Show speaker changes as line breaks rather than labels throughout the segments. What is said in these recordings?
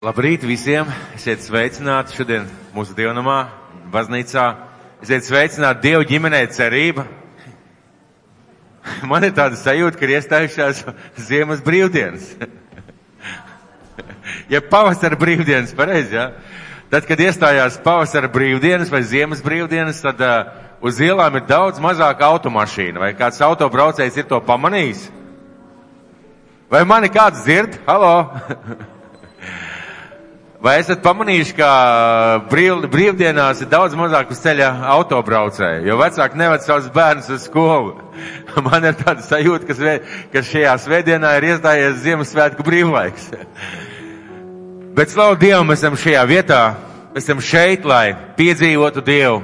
Labrīt visiem! Esiet sveicināti šodien mūsu dievnamā, baznīcā. Esiet sveicināti Dievu ģimenē cerība. Man ir tāda sajūta, ka ir iestājušās ziemas brīvdienas. Ja pavasara brīvdienas, pareizi, jā? Tad, kad iestājās pavasara brīvdienas vai ziemas brīvdienas, tad uz ielām ir daudz mazāk automašīnu. Vai kāds autobraucējs ir to pamanījis? Vai mani kāds dzird? Halo! Vai esat pamanījuši, ka brīvdienās ir daudz mazāk uz ceļa autobraucēju, jo vecāki neved savus bērnus uz skolu? Man ir tāda sajūta, ka šajā svētdienā ir iestājies Ziemassvētku brīvlaiks. Bet slavu Dievam, mēs esam šajā vietā, mēs esam šeit, lai piedzīvotu Dievu,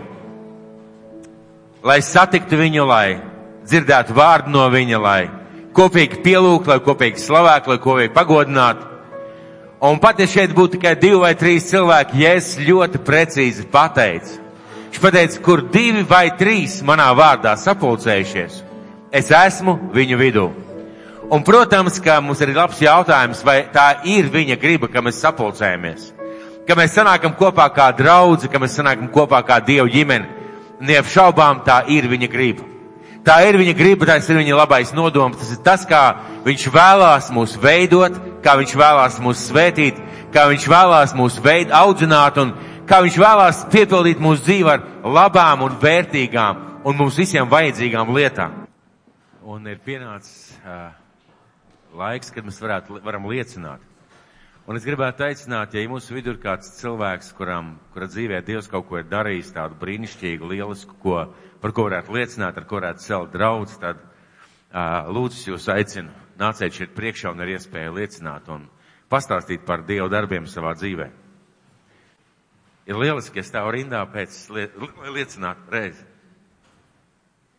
lai satiktu viņu, lai dzirdētu vārdu no viņa, lai kopīgi pielūgtu, lai kopīgi slavētu, lai kopīgi pagodinātu. Un pat ja šeit būtu tikai 2 vai 3 cilvēki, ja es ļoti precīzi pateicu, viņš pateica, kur 2 vai 3 manā vārdā sapulcējušies, es esmu viņu vidū. Un, protams, ka mums ir labs jautājums, vai tā ir viņa griba, ka mēs sapulcējamies, ka mēs sanākam kopā kā draudzi, ka mēs sanākam kopā kā Dievu ģimeni. Neapšaubām tā ir viņa griba. Tā ir viņa griba, tas ir viņa labais nodoms, tas ir tas, kā viņš vēlās mūs veidot, kā viņš vēlās mūs svētīt, kā viņš vēlās mūs audzināt un kā viņš vēlās piepildīt mūsu dzīvi ar labām un vērtīgām un mums visiem vajadzīgām lietām. Un ir pienācis laiks, kad mēs varam liecināt. Un es gribētu aicināt, ja mūsu vidū ir kāds cilvēks, kura dzīvē Dievs kaut ko ir darījis, tādu brīnišķīgu, lielisku, par ko varētu liecināt, ar ko varētu celt draudz, tad lūdzu jūs aicinu, nāciet šeit priekšā un ar iespēju liecināt un pastāstīt par Dievu darbiem savā dzīvē. Ir lieliski, ja stāv rindā pēc liecināt reizi.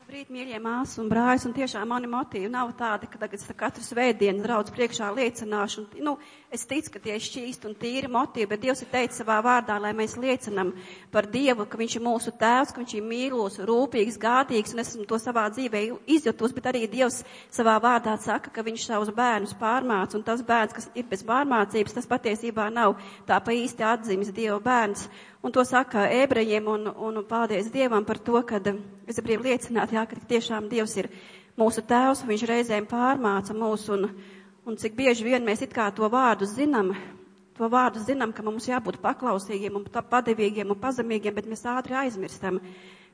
Labrīt, mīļie māsas un brāļus, un tiešām mani motīvi nav tādi, ka tagad katru svētdienu draudz priekšā liecināšu. Es ticu, ka tie ir šķīsti un tīri motīvi, bet Dievs ir teicis savā vārdā, lai mēs liecinam par Dievu, ka viņš ir mūsu tēvs, ka viņš ir mīlos, rūpīgs, gādīgs, un esmu to savā dzīvē izjutus, bet arī Dievs savā vārdā saka, ka viņš savus bērnus pārmāca, un tas bērns, kas ir bez pārmācības, tas patiesībā nav tā pa īsti atzīmes Dieva bērns. Un to saka ebrejiem, un paldies Dievam par to, kad es gribu liecināt, jā, ka tiešām Dievs ir mūsu tēvs, viņš reizēm pārmāca mūs, un cik bieži vien mēs it kā to vārdu zinām, ka mums jābūt paklausīgiem un padevīgiem un pazemīgiem, bet mēs ātri aizmirstam.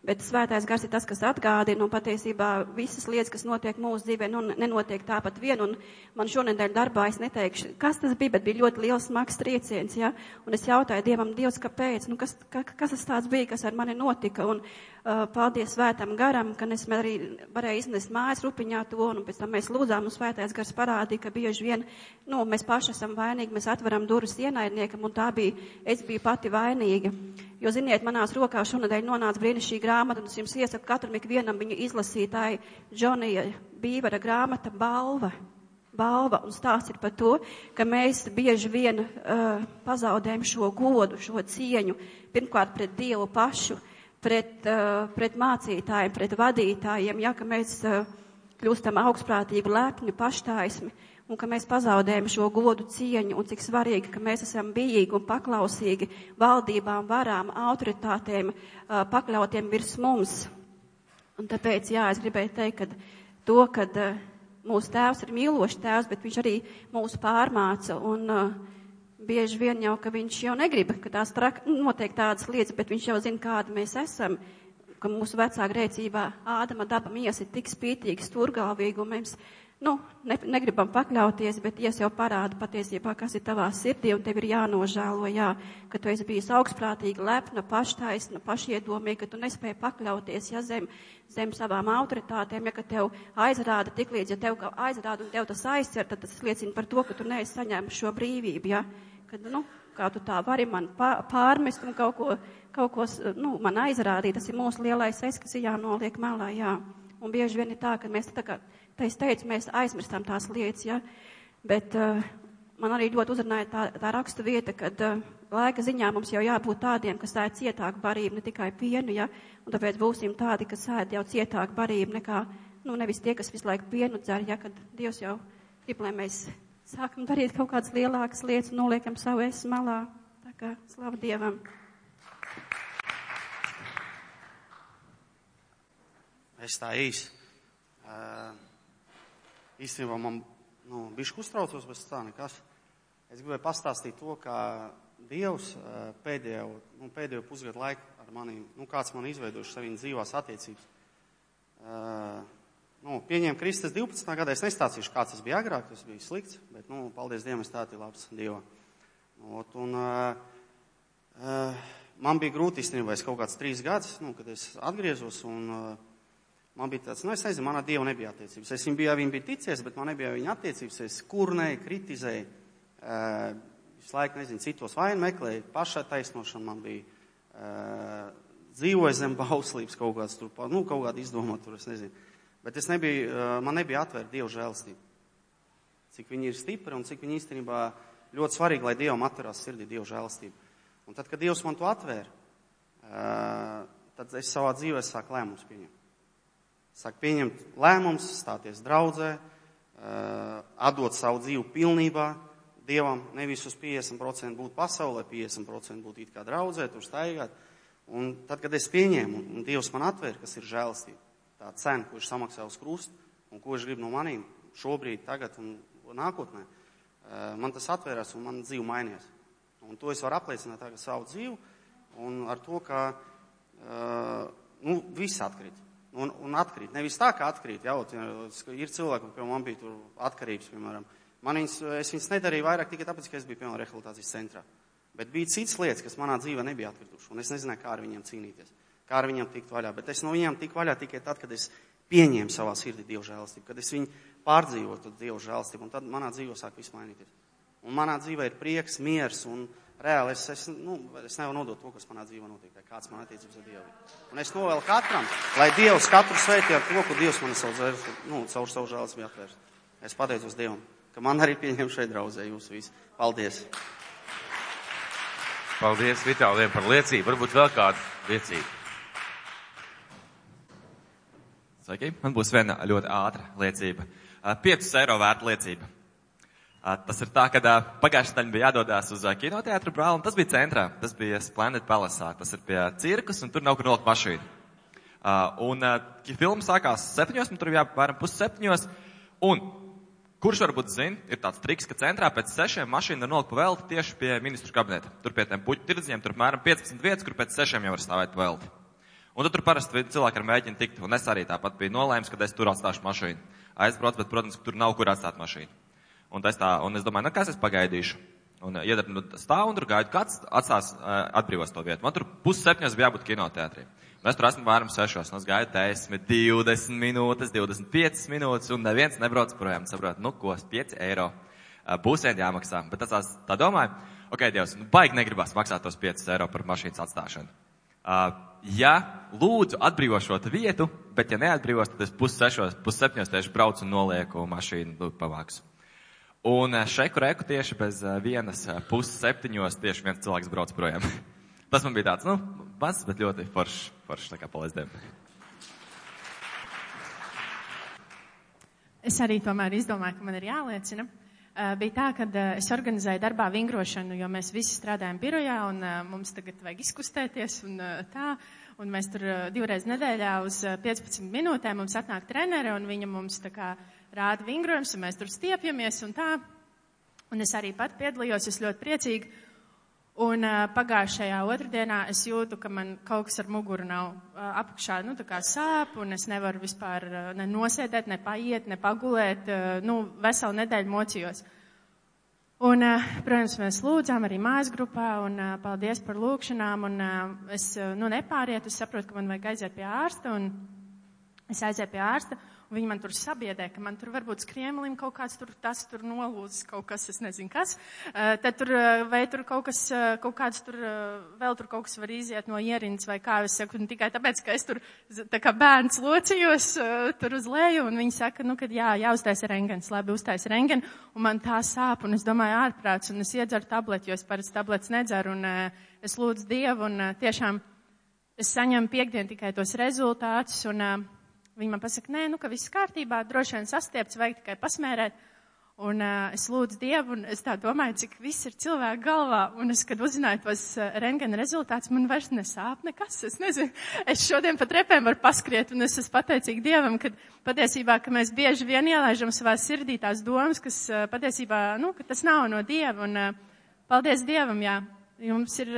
Bet svētais gars ir tas, kas atgādina, un patiesībā visas lietas, kas notiek mūsu dzīvē, nenotiek tāpat vien, un man šonedēļ darbā es neteikšu, kas tas bija, bet bija ļoti liels smags trieciens, ja, un es jautāju Dievam, Dievs, kāpēc, kas tas tāds bija, kas ar mani notika, un paldies svētam garam, ka es arī varēju iznest mājas rupiņā to, un pēc tam mēs lūdzām, un svētais gars parādīja, ka bieži vien, mēs paši esam vainīgi, mēs atveram durvis ienaidniekam, un es biju pati vainīga. Jo, ziniet, manās rokās šonadēļ nonāca brīnišķīga grāmata, un es jums iesaku katram ikvienam viņu izlasītāju Džonija Bīvera grāmata Balva, un stāsts ir par to, ka mēs bieži vien pazaudējam šo godu, šo cieņu, pirmkārt pret Dievu pašu, pret mācītājiem, pret vadītājiem, ja, ka mēs kļūstam augstprātīgi, lepni, paštaismi, un ka mēs pazaudējam šo godu cieņu, un cik svarīgi, ka mēs esam bijīgi un paklausīgi valdībām, varām, autoritātēm, pakļautiem virs mums. Un tāpēc, jā, es gribēju teikt, kad mūsu tēvs ir mīlošs tēvs, bet viņš arī mūs pārmāca, un bieži vien jau, ka viņš jau negrib, ka tās notiek tādas lietas, bet viņš jau zina, kādi mēs esam, ka mūsu vecā grēcībā Ādama daba miesa ir tik spītīga, stūrgalvīga, un mēs negribam pakļauties, bet Dievs jau parāda patiesībā, kas ir tavā sirdī, un tev ir jānožēlo, jā, ka tu esi bijis augstprātīga, lepna, paštaisna, pašiedomīga, ka tu nespēji pakļauties, ja zem savām autoritātēm, ja ka tev aizrāda tiklīdz, ja tev aizrāda un tev tas aizcer, tad tas liecina par to, ka tu neesi saņēmis šo brīvību, ja, kad, kā tu tā vari man pārmest un kaut ko man aizrādīt, tas ir mūsu lielais es, kas ir jānoliek malā, jā. Un bieži vien ir tā, ka mēs es teicu, mēs aizmirstam tās lietas, ja, bet man arī ļoti uzrunāja tā rakstu vieta, kad laika ziņā mums jau jābūt tādiem, kas ēd cietāku barību, ne tikai pienu, ja, un tāpēc būsim tādi, kas ēd jau cietāku barību nekā, nevis tie, kas visu laiku pienu dzer, ja, kad Dievs jau grib, lai mēs sākam darīt kaut kādas lielākas lietas un noliekam savu es malā. Tā kā slava Dievam.
Es tā īsi. Īstenībā man, bišķi uztraucos, bet tā nekas. Es gribēju pastāstīt to, kā Dievs pēdējo pusgadu laiku ar maniem, kāds man izveidojuši saviem dzīvās attiecības. Pieņēmu Kristus 12. gadā, es nestāstīšu, kāds tas bija agrāk, tas bija slikts, bet, paldies Dievam, es tātī labs Dievā. Man bija grūti īstenībā, es kaut kāds 3 gadus, kad es atgriezos, un man bija tāds, es nezinu, manā Dievu nebija attiecības. Es viņu bija ticies, bet man nebija viņa attiecības. Es kurnēju, kritizēju, visu laiku, citos vainu meklēju, pašai taisnošana man bija, dzīvoju zem bauslības kaut kāds tur, kaut kādu izdomāt tur, es nezinu. Bet man nebija atvērta Dieva žēlastība. Cik viņi ir stipri un cik viņi īstenībā ļoti svarīgi, lai Dievam atverās sirdī Dieva žēlastība. Un tad, kad Dievs man to atvēra, tad es savā dzīvē sāku lēmumus pieņemt. Sāk pieņemt lēmums, stāties draudzē, atdot savu dzīvi pilnībā Dievam, nevis uz 50% būt pasaulē, 50% būt it kā draudzē, tur staigāt. Un tad, kad es pieņēmu, un Dievs man atvēra, kas ir žēlastība, tā cena, ko viņš samaksā uz krustu, un ko viņš grib no manīm šobrīd, tagad un nākotnē, man tas atvērās un man dzīve mainījās. Un to es varu apliecināt tagad savu dzīvi, un ar to, ka viss atkrīt. Un atkrīt. Nevis tā, kā atkrīt. Ir cilvēki, piemēram, man bija tur atkarības, piemēram. Es viņas nedarīju vairāk tikai tāpēc, ka es biju, piemēram, rehabilitācijas centrā. Bet bija citas lietas, kas manā dzīvē nebija atkrituši. Un es nezināju, kā ar viņiem cīnīties. Kā ar viņiem tikt vaļā. Bet es no viņiem tiku vaļā tikai tad, kad es pieņēmu savā sirdī Dieva žēlastību. Kad es viņu pārdzīvotu Dieva žēlastību. Un tad manā dzīvē sāk viss mainīties. Un manā dzīvē ir prieks, miers un reāli es nevaru nodot to, kas manā dzīvē notiek, kāds man attiecības ar Dievu. Un es novēlu katram, lai Dievs katru sveitī ar to, ko Dievs man caur savu žēlastību atvērs. Es pateicos Dievam, ka man arī pieņem šeit draudzē jūs visi. Paldies!
Paldies Vitāliem par liecību. Varbūt vēl kādu liecību.
Sveiki, man būs viena ļoti ātra liecība. 5 eiro vērta liecība. Tas ir tā, ka pagājušajā nedēļā bija jādodās uz kinoteātru Brāli, un tas bija centrā, tas bija Splendid Palace, tas ir pie cirkus, un tur nav kur nolikt mašīnu. Filma sākās 7, un tur jāpēram 6:30, un kurš varbūt zina, ir tāds triks, ka centrā pēc 6 mašīna nolikt pa velti tieši pie ministru kabineta. Tur pie tiem puķu tirdziņiem, tur apmēram 15 vietas, kur pēc 6 jau var stāvēt pa velti. Un tur parasti cilvēki ar mēģina tikt, un es arī tāpat biju nolēms, ka es tur atstāšu mašīnu. Aizbraucu, bet, protams, tur nav kur atstāt mašīnu. Un es domāju, kas es pagaidīšu. Un stāvu un tur gaidu, kāds atstās atbrīvos to vietu. Man tur 6:30 bija jābūt kinoteātrī. Un es tur esmu varam 6, un es gaidu 10, 20 minūtes, 25 minūtes, un neviens nebrauc projām. Saprot, ko, 5 eiro būs vien jāmaksā. Bet tā domāju, ok, Dievs, baigi negribas maksāt tos 5 eiro par mašīnas atstāšanu. Ja lūdzu atbrīvo šo vietu, bet ja neatbrīvos, tad es 6:30 tieši braucu un nolieku mašīnu pavāksu. Un šeku reku tieši bez 1:30 tieši viens cilvēks brauc projām. Tas man bija tāds, mazs, bet ļoti foršs, tā kā paldies Dievam.
Es arī tomēr izdomāju, ka man ir jāliecina. Bija tā, ka es organizēju darbā vingrošanu, jo mēs visi strādājam birojā un mums tagad vajag izkustēties un tā. Un mēs tur 2 reizes nedēļā uz 15 minūtēm mums atnāk trenere un viņa mums tā kā rāda vingrojums un mēs tur stiepjamies un tā. Un es arī pat piedalījos, es ļoti priecīgi. Un pagājušajā otrdienā es jūtu, ka man kaut kas ar muguru nav apakšā, tā kā sāp un es nevaru vispār ne nosēdēt, ne paiet, ne pagulēt, veselu nedēļu mocījos. Un, protams, mēs lūdzām arī mājas grupā un paldies par lūkšanām un es, nepāriet, es saprotu, ka man vajag aiziet pie ārsta un es aizēju pie ārsta. Viņi man tur sabiedē, ka man tur varbūt skriemelim kaut kāds tas tur nolūzis, kaut kas, es nezinu kas. Tad tur, vai tur kaut kāds tur, vēl tur kaut kas var iziet no ierindas vai kā, es saku, tikai tāpēc, ka es tur, tā kā bērns locījos tur uz leju, un viņi saka, kad jāuztais rengens, labi, uztais rengen, un man tā sāp, un es domāju ārprāts, un es iedzeru tableti, jo es parasti tabletes nedzeru, un es lūdzu Dievu, un tiešām es saņemu piektdien tikai tos rezultātus, un viņi man pasaka, ka viss kārtībā, droši vien sastiepts, vajag tikai pasmērēt. Un es lūdzu Dievu, un es tā domāju, cik viss ir cilvēku galvā. Un es, kad uzzināju tos rentgena rezultātus, man vairs nesāp nekas. Es nezinu, es šodien pa trepēm varu paskriet, un es esmu pateicīga Dievam, ka patiesībā, ka mēs bieži vien ielaižam savā sirdī tās domas, kas patiesībā, ka tas nav no Dieva. Un paldies Dievam, jā. Jums ir,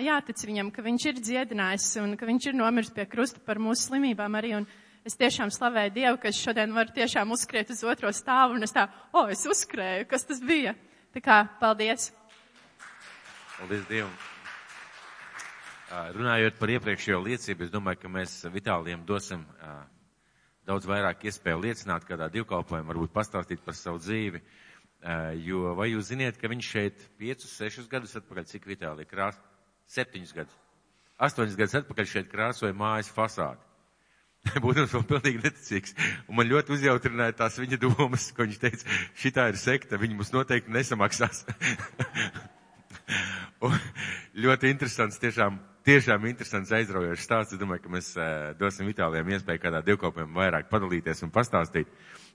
jātic viņam, ka viņš ir dziedinājis un ka viņš ir nomiris pie krusta par mūsu slimībām arī. Un es tiešām slavēju Dievu, ka es šodien varu tiešām uzskriet uz otro stāvu, un es es uzskrēju, kas tas bija. Tā kā, paldies.
Paldies Dievam. Runājot par iepriekšējo liecību, es domāju, ka mēs Vitālijam dosim daudz vairāk iespēju liecināt kādā divkalpojumā, varbūt pastāstīt par savu dzīvi. Jo, vai jūs ziniet, ka viņš šeit 5-6 gadus atpakaļ, cik Vitālija 7 gadus, 8 gadus atpakaļ šeit krāsoja mājas fasādi. Būtams vēl pilnīgi neticīgs. Un man ļoti uzjautrināja tās viņa domas, ko viņš teica, šitā ir sekta, viņi mums noteikti nesamaksās. Un ļoti interesants, tiešām interesants aizraujošs stāsts. Es domāju, ka mēs dosim Vitālijam iespēju kādā divkopiem vairāk padalīties un pastāstīt.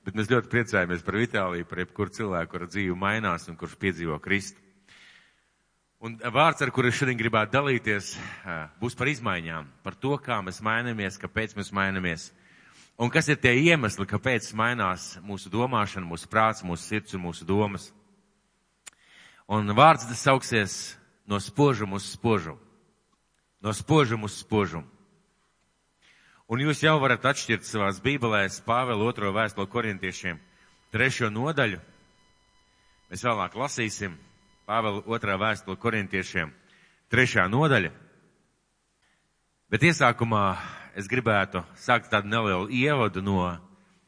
Bet mēs ļoti priecājamies par Vitāliju, par jebkuru cilvēku, kura dzīve mainās un kurš piedzīvo Kristu. Un vārds, ar kuru es šodien gribētu dalīties, būs par izmaiņām, par to, kā mēs mainamies, kāpēc mēs mainamies. Un kas ir tie iemesli, kāpēc mainās mūsu domāšana, mūsu prāts, mūsu sirds un mūsu domas. Un vārds tas sauksies no spožuma uz spožumu. No spožuma uz spožumu. Un jūs jau varat atšķirt savās bībelēs Pāvela 2. vēstuli Korintiešiem 3. nodaļu. Mēs vēlāk lasīsim. Pāvela 2. vēstule Korintiešiem 3. nodaļa. Bet iesākumā es gribētu sākt tādu nelielu ievadu no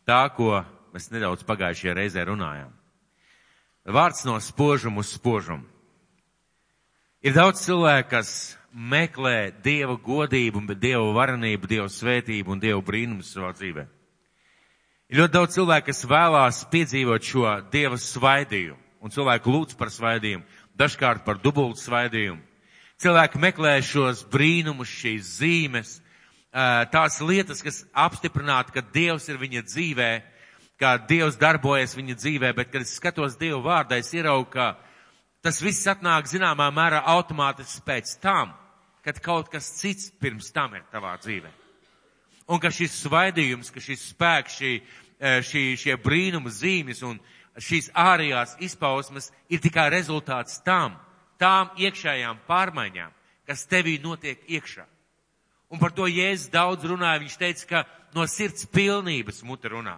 tā, ko mēs nedaudz pagājušajā reizē runājām. Vārds no spožuma uz spožumu. Ir daudz cilvēku, kas meklē Dieva godību, Dieva varenību, Dieva svētību un Dieva brīnumus savā dzīvē. Ir ļoti daudz cilvēku, kas vēlās piedzīvot šo Dieva svaidījumu. Un cilvēki lūdz par svaidījumu, dažkārt par dubultu svaidījumu. Cilvēki meklē šos brīnumus, šīs zīmes, tās lietas, kas apstiprinātu, ka Dievs ir viņa dzīvē, ka Dievs darbojas viņa dzīvē, bet, kad es skatos Dievu vārdā, es ieraugu, ka tas viss atnāk zināmā mērā automātiski pēc tam, kad kaut kas cits pirms tam ir tavā dzīvē. Un ka šis svaidījums, ka šis spēks, šie brīnuma zīmes un šīs ārējās izpausmes ir tikai rezultāts tām iekšējām pārmaiņām, kas tevī notiek iekšā. Un par to Jēzus daudz runāja. Viņš teica, ka no sirds pilnības mute runā.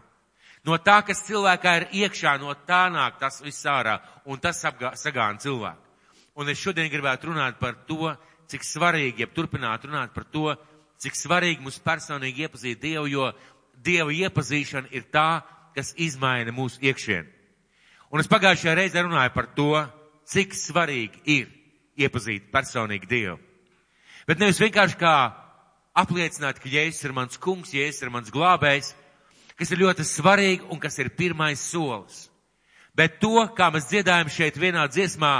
No tā, kas cilvēkā ir iekšā, no tā nāk tas viss ārā, un tas sagāna cilvēku. Un es šodien gribētu runāt par to, cik svarīgi, turpināt runāt par to, cik svarīgi mums personīgi iepazīt Dievu, jo Dieva iepazīšana ir tā, kas izmaina mūsu iekšienu. Un es pagājušajā reizē runāju par to, cik svarīgi ir iepazīt personīgi Dievu. Bet nevis vienkārši kā apliecināt, ka Jēzus ir mans kungs, Jēzus ir mans glābējs, kas ir ļoti svarīgi un kas ir pirmais solis. Bet to, kā mēs dziedājam šeit vienā dziesmā,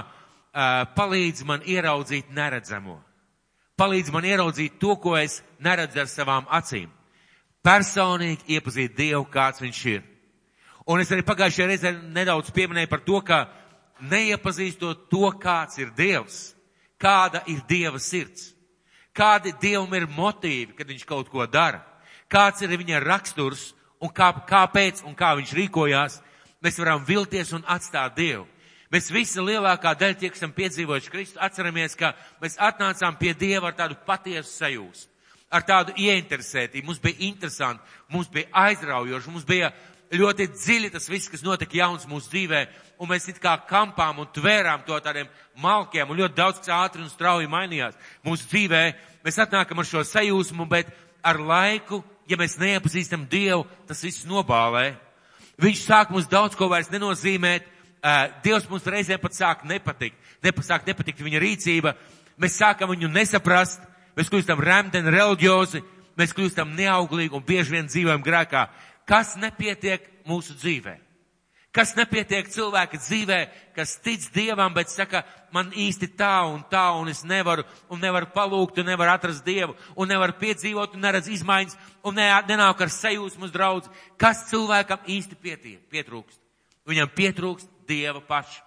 palīdz man ieraudzīt neredzamo. Palīdz man ieraudzīt to, ko es neredzu ar savām acīm. Personīgi iepazīt Dievu, kāds viņš ir. Un es arī pagājušajā reizē nedaudz pieminēju par to, ka neiepazīstot to, kāds ir Dievs, kāda ir Dieva sirds, kādi Dievam ir motīvi, kad viņš kaut ko dara, kāds ir viņa raksturs un kāpēc un kā viņš rīkojās, mēs varam vilties un atstāt Dievu. Mēs visi lielākā daļa tie, kas esam piedzīvojuši Kristu, atceramies, ka mēs atnācām pie Dieva ar tādu patiesu sajūsmu, ar tādu ieinteresētību. Mums bija interesanti, mums bija aizraujoši, mums bija ļoti dziļi tas viss, kas notika jauns mūsu dzīvē, un mēs it kā kampām un tvērām to tādiem malkiem, un ļoti daudz, kas ātri un strauji mainījās mūsu dzīvē. Mēs atnākam ar šo sajūsmu, bet ar laiku, ja mēs neiepazīstam Dievu, tas viss nobālē. Viņš sāk mums daudz ko vairs nenozīmēt. Dievs mums reizē pat sāk nepatikt viņa rīcība. Mēs sākam viņu nesaprast, mēs kļūstam remdeni, reliģiozi, mēs kļūstam neauglīgi un bieži vien dzīvojam grēkā. Kas nepietiek mūsu dzīvē? Kas nepietiek cilvēka dzīvē, kas tic Dievam, bet saka, man īsti tā, un es nevaru palūgt, un nevaru atrast Dievu, un nevaru piedzīvot, un neredz izmaiņas, un nenāk ar sajūsmu uz draudzi. Kas cilvēkam īsti pietrūkst? Viņam pietrūkst Dieva paša.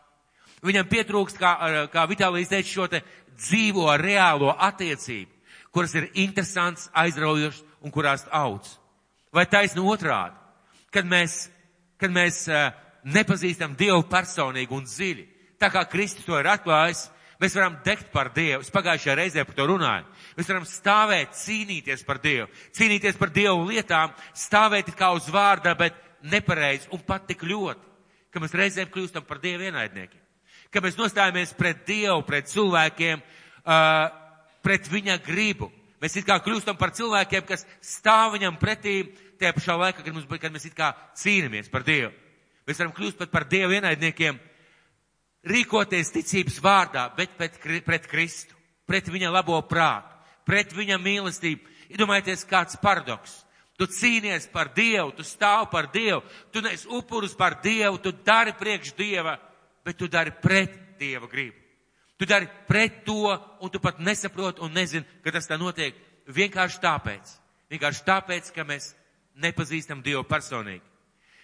Viņam pietrūkst, kā Vitālijs teica, šo te dzīvo, reālo attiecību, kuras ir interesants, aizraujošs un kurās audz. Vai taisni otrādi, kad mēs nepazīstam Dievu personīgi un dziļi, tā kā Kristus to ir atklājis, mēs varam degt par Dievu. Es pagājušajā reizē par to runāju. Mēs varam stāvēt, cīnīties par Dievu lietām, stāvēt kā uz vārda, bet nepareizi un pat tik ļoti, ka mēs reizēm kļūstam par Dievu ienaidniekiem. Ka mēs nostājamies pret Dievu, pret cilvēkiem, pret viņa gribu. Mēs it kā kļūstam par cilvēkiem, kas stāv viņam pretī, tajā pašā laikā, kad mēs it kā cīnamies par Dievu. Mēs varam kļūst pat par Dievu ienaidniekiem, rīkoties ticības vārdā, bet pret Kristu, pret viņa labo prātu, pret viņa mīlestību. Iedomājieties, kāds paradoks. Tu cīnies par Dievu, tu stāv par Dievu, tu nes upurus par Dievu, tu dari priekš Dieva, bet tu dari pret Dieva gribu. Tu dari pret to, un tu pat nesaproti un nezini, ka tas tā notiek vienkārši tāpēc, ka mēs nepazīstam Dievu personīgi.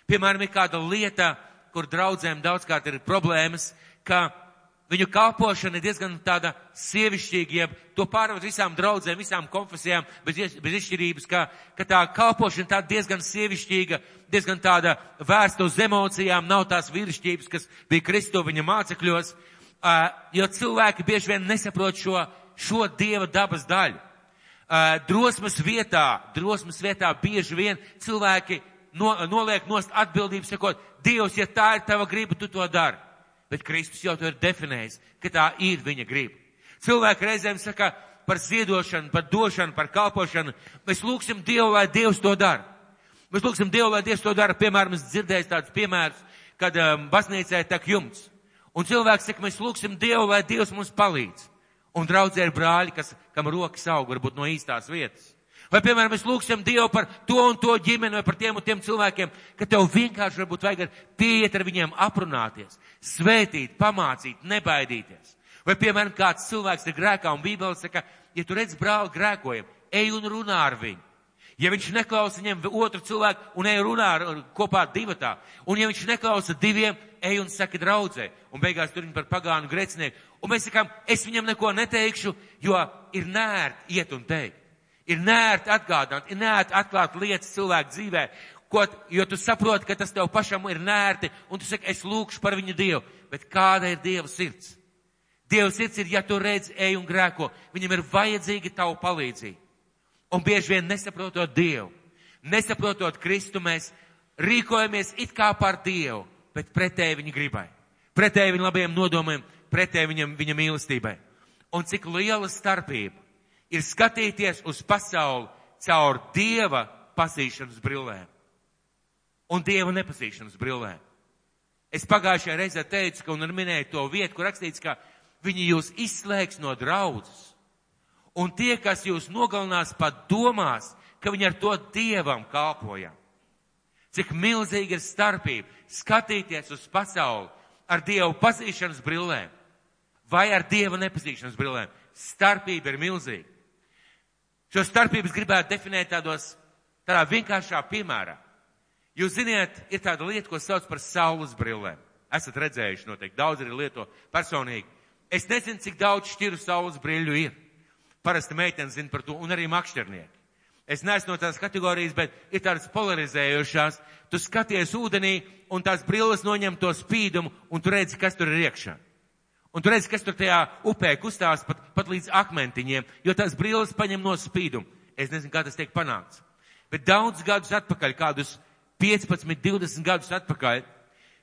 Piemēram, ir kāda lieta, kur draudzēm daudzkārt ir problēmas, ka viņu kalpošana ir diezgan tāda sievišķīga, ja to pārved visām draudzēm, visām konfesijām, bez izšķirības, ka tā kalpošana tā diezgan sievišķīga, diezgan tāda vērsta uz emocijām, nav tās vīrišķības, kas bija Kristu viņa mācekļos, jo cilvēki bieži vien nesaprot šo Dieva dabas daļu. Drosmes vietā bieži vien cilvēki noliek nost atbildību, sakot, Dievs, ja tā ir tava griba, tu to dari. Bet Kristus jau to ir definējis, ka tā ir viņa griba. Cilvēki reizēm saka par ziedošanu, par došanu, par kalpošanu. Mēs lūgsim Dievu, lai Dievs to dara. Piemēram, es dzirdēju tādus piemērus, kad baznīcē tek jumts. Un cilvēks saka, mēs lūgsim Dievu, lai Dievs mums palīdz. Un draudzē ir brāļi, kam rokas aug, varbūt no īstās vietas. Vai, piemēram, mēs lūgsim Dievu par to un to ģimeni vai par tiem un tiem cilvēkiem, ka tev vienkārši varbūt vajag pieiet ar viņiem aprunāties, svētīt, pamācīt, nebaidīties. Vai, piemēram, kāds cilvēks ir grēkā un Bībele saka, ja tu redz brāli grēkojam, ej un runā ar viņu. Ja viņš neklausa viņam otru cilvēku un ej runā kopā divatā, un ja viņš neklausa diviem, ej un saki draudzē, un beigās tur viņi par pagānu grēcinieku. Un mēs sakām, es viņam neko neteikšu, jo ir nērti iet un teikt. Ir nērti atgādāt, ir nērti atklāt lietas cilvēku dzīvē, jo tu saproti, ka tas tev pašam ir nērti, un tu saki, es lūkšu par viņu Dievu. Bet kāda ir Dieva sirds? Dieva sirds ir, ja tu redz, ej un grēko, viņam ir vajadzīga tavu palīdzību. Un bieži vien nesaprotot Dievu, nesaprotot Kristu, mēs rīkojamies it kā par Dievu, bet pretēji viņa gribai, pretēji viņa labajiem nodomiem, pretēji viņa mīlestībai. Un cik liela starpība ir skatīties uz pasauli caur Dieva pazīšanas brillēm un Dieva nepazīšanas brillēm. Es pagājušajā reizē teicu, un minēju to vietu, kur rakstīts, ka viņi jūs izslēgs no draudzes. Un tie, kas jūs nogalinās, pat domās, ka viņi ar to Dievam kalpojam. Cik milzīga ir starpība skatīties uz pasauli ar Dievu pazīšanas brillēm vai ar Dieva nepazīšanas brillēm. Starpība ir milzīga. Šo starpību es gribētu definēt tādā vienkāršā piemērā. Jūs ziniet, ir tāda lieta, ko sauc par saules brillēm. Esat redzējuši noteikti, daudz arī lieto personīgi. Es nezinu, cik daudz šķiru saules brīļu ir. Parasti meitenes zina par to, un arī makšķernieki. Es neesmu no tās kategorijas, bet ir tādas polarizējošās. Tu skaties ūdenī, un tās brilles noņem to spīdumu, un tu redzi, kas tur ir iekšā. Un tu redzi, kas tur tajā upē kustās pat līdz akmentiņiem, jo tās brilles paņem no spīdumu. Es nezinu, kā tas tiek panākts. Bet daudz gadus atpakaļ, kādus 15, 20 gadus atpakaļ,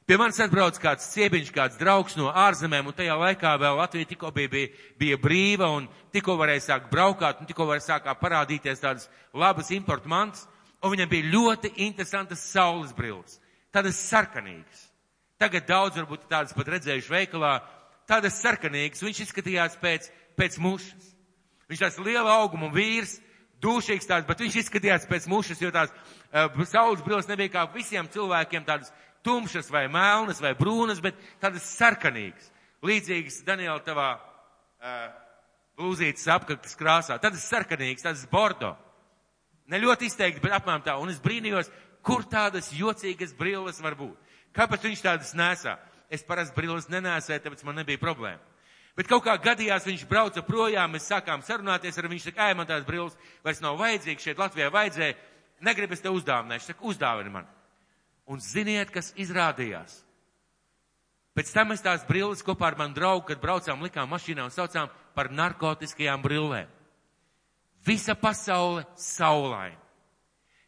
pie manis atbrauc kāds ciebiņš, kāds draugs no ārzemēm, un tajā laikā vēl Latvija tikko bija brīva, un tikko varēja sākt braukāt, un tikko varēja sākāt parādīties tādas labas importu mantas, un viņam bija ļoti interesantas saules brilles, tādas sarkanīgas. Tagad daudz varbūt tādas pat redzējuši veikalā, tādas sarkanīgas, viņš izskatījās pēc mušas. Viņš tāds liela auguma vīrs, dūšīgs tāds, bet viņš izskatījās pēc mušas, jo tās saules brilles nebija kā visiem cilvēkiem tādas tumšas vai melnas vai brūnas, bet tādas sarkanīgas. Līdzīgas, Daniela, tavā blūzītes apkaktas krāsā. Tādas sarkanīgas, tādas bordo. Ne ļoti izteikti, bet apmēram tā. Un es brīnījos, kur tādas jocīgas brilles var būt. Kāpēc viņš tādas nesā? Es parasti brilles nenēsēju, tāpēc man nebija problēma. Bet kaut kā gadījās, viņš brauca projām, mēs sākām sarunāties ar viņš saka, man tās brilles vairs nav vajadzīgas, šeit Latvijā vajadzēja, negribu es te uzdāvināt, viņš saka, uzdāvini man. Un ziniet, kas izrādījās? Pēc tam mēs tās brilles kopā ar manu draugu, kad braucām, likām mašīnā un saucām par narkotiskajām brillēm. Visa pasaule saulaina.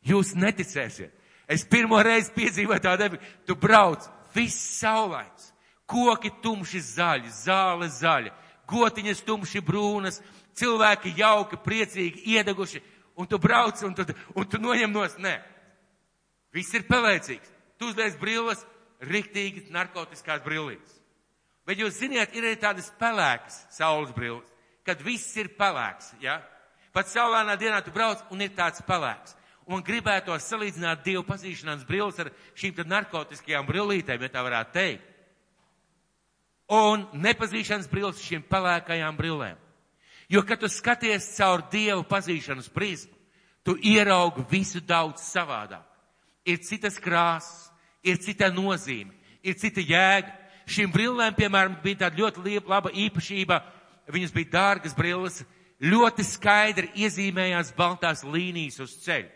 Jūs neticēsiet. Es pirmo reizi piedzīvoju tādu, tu brauc, viss saulains. Koki tumši zaļi, zāle zaļa, gotiņas tumši brūnas, cilvēki jauki, priecīgi, iedeguši, un tu brauc, un tu noņem nos, nē. Viss ir pelēcīgs. Tu uzliec brilles, riktīgi narkotiskās brillītes. Bet jūs ziniet, ir arī tādas pelēkas saules brilles, kad viss ir pelēks, ja? Pat saulainā dienā tu brauc, un ir tāds pelēks. Un gribētu salīdzināt Dievu pazīšanās brilles ar šīm tad narkotiskajām brillītēm, ja tā varētu teikt. Un nepazīšanas brilles šīm pelēkajām brillēm. Jo, kad tu skaties caur Dievu pazīšanas prizmu, tu ieraugi visu daudz savādāk. Ir citas krāsas, ir cita nozīme, ir cita jēga. Šīm brillēm, piemēram, bija tāda ļoti laba īpašība, viņas bija dārgas brilles, ļoti skaidri iezīmējās baltās līnijas uz ceļa.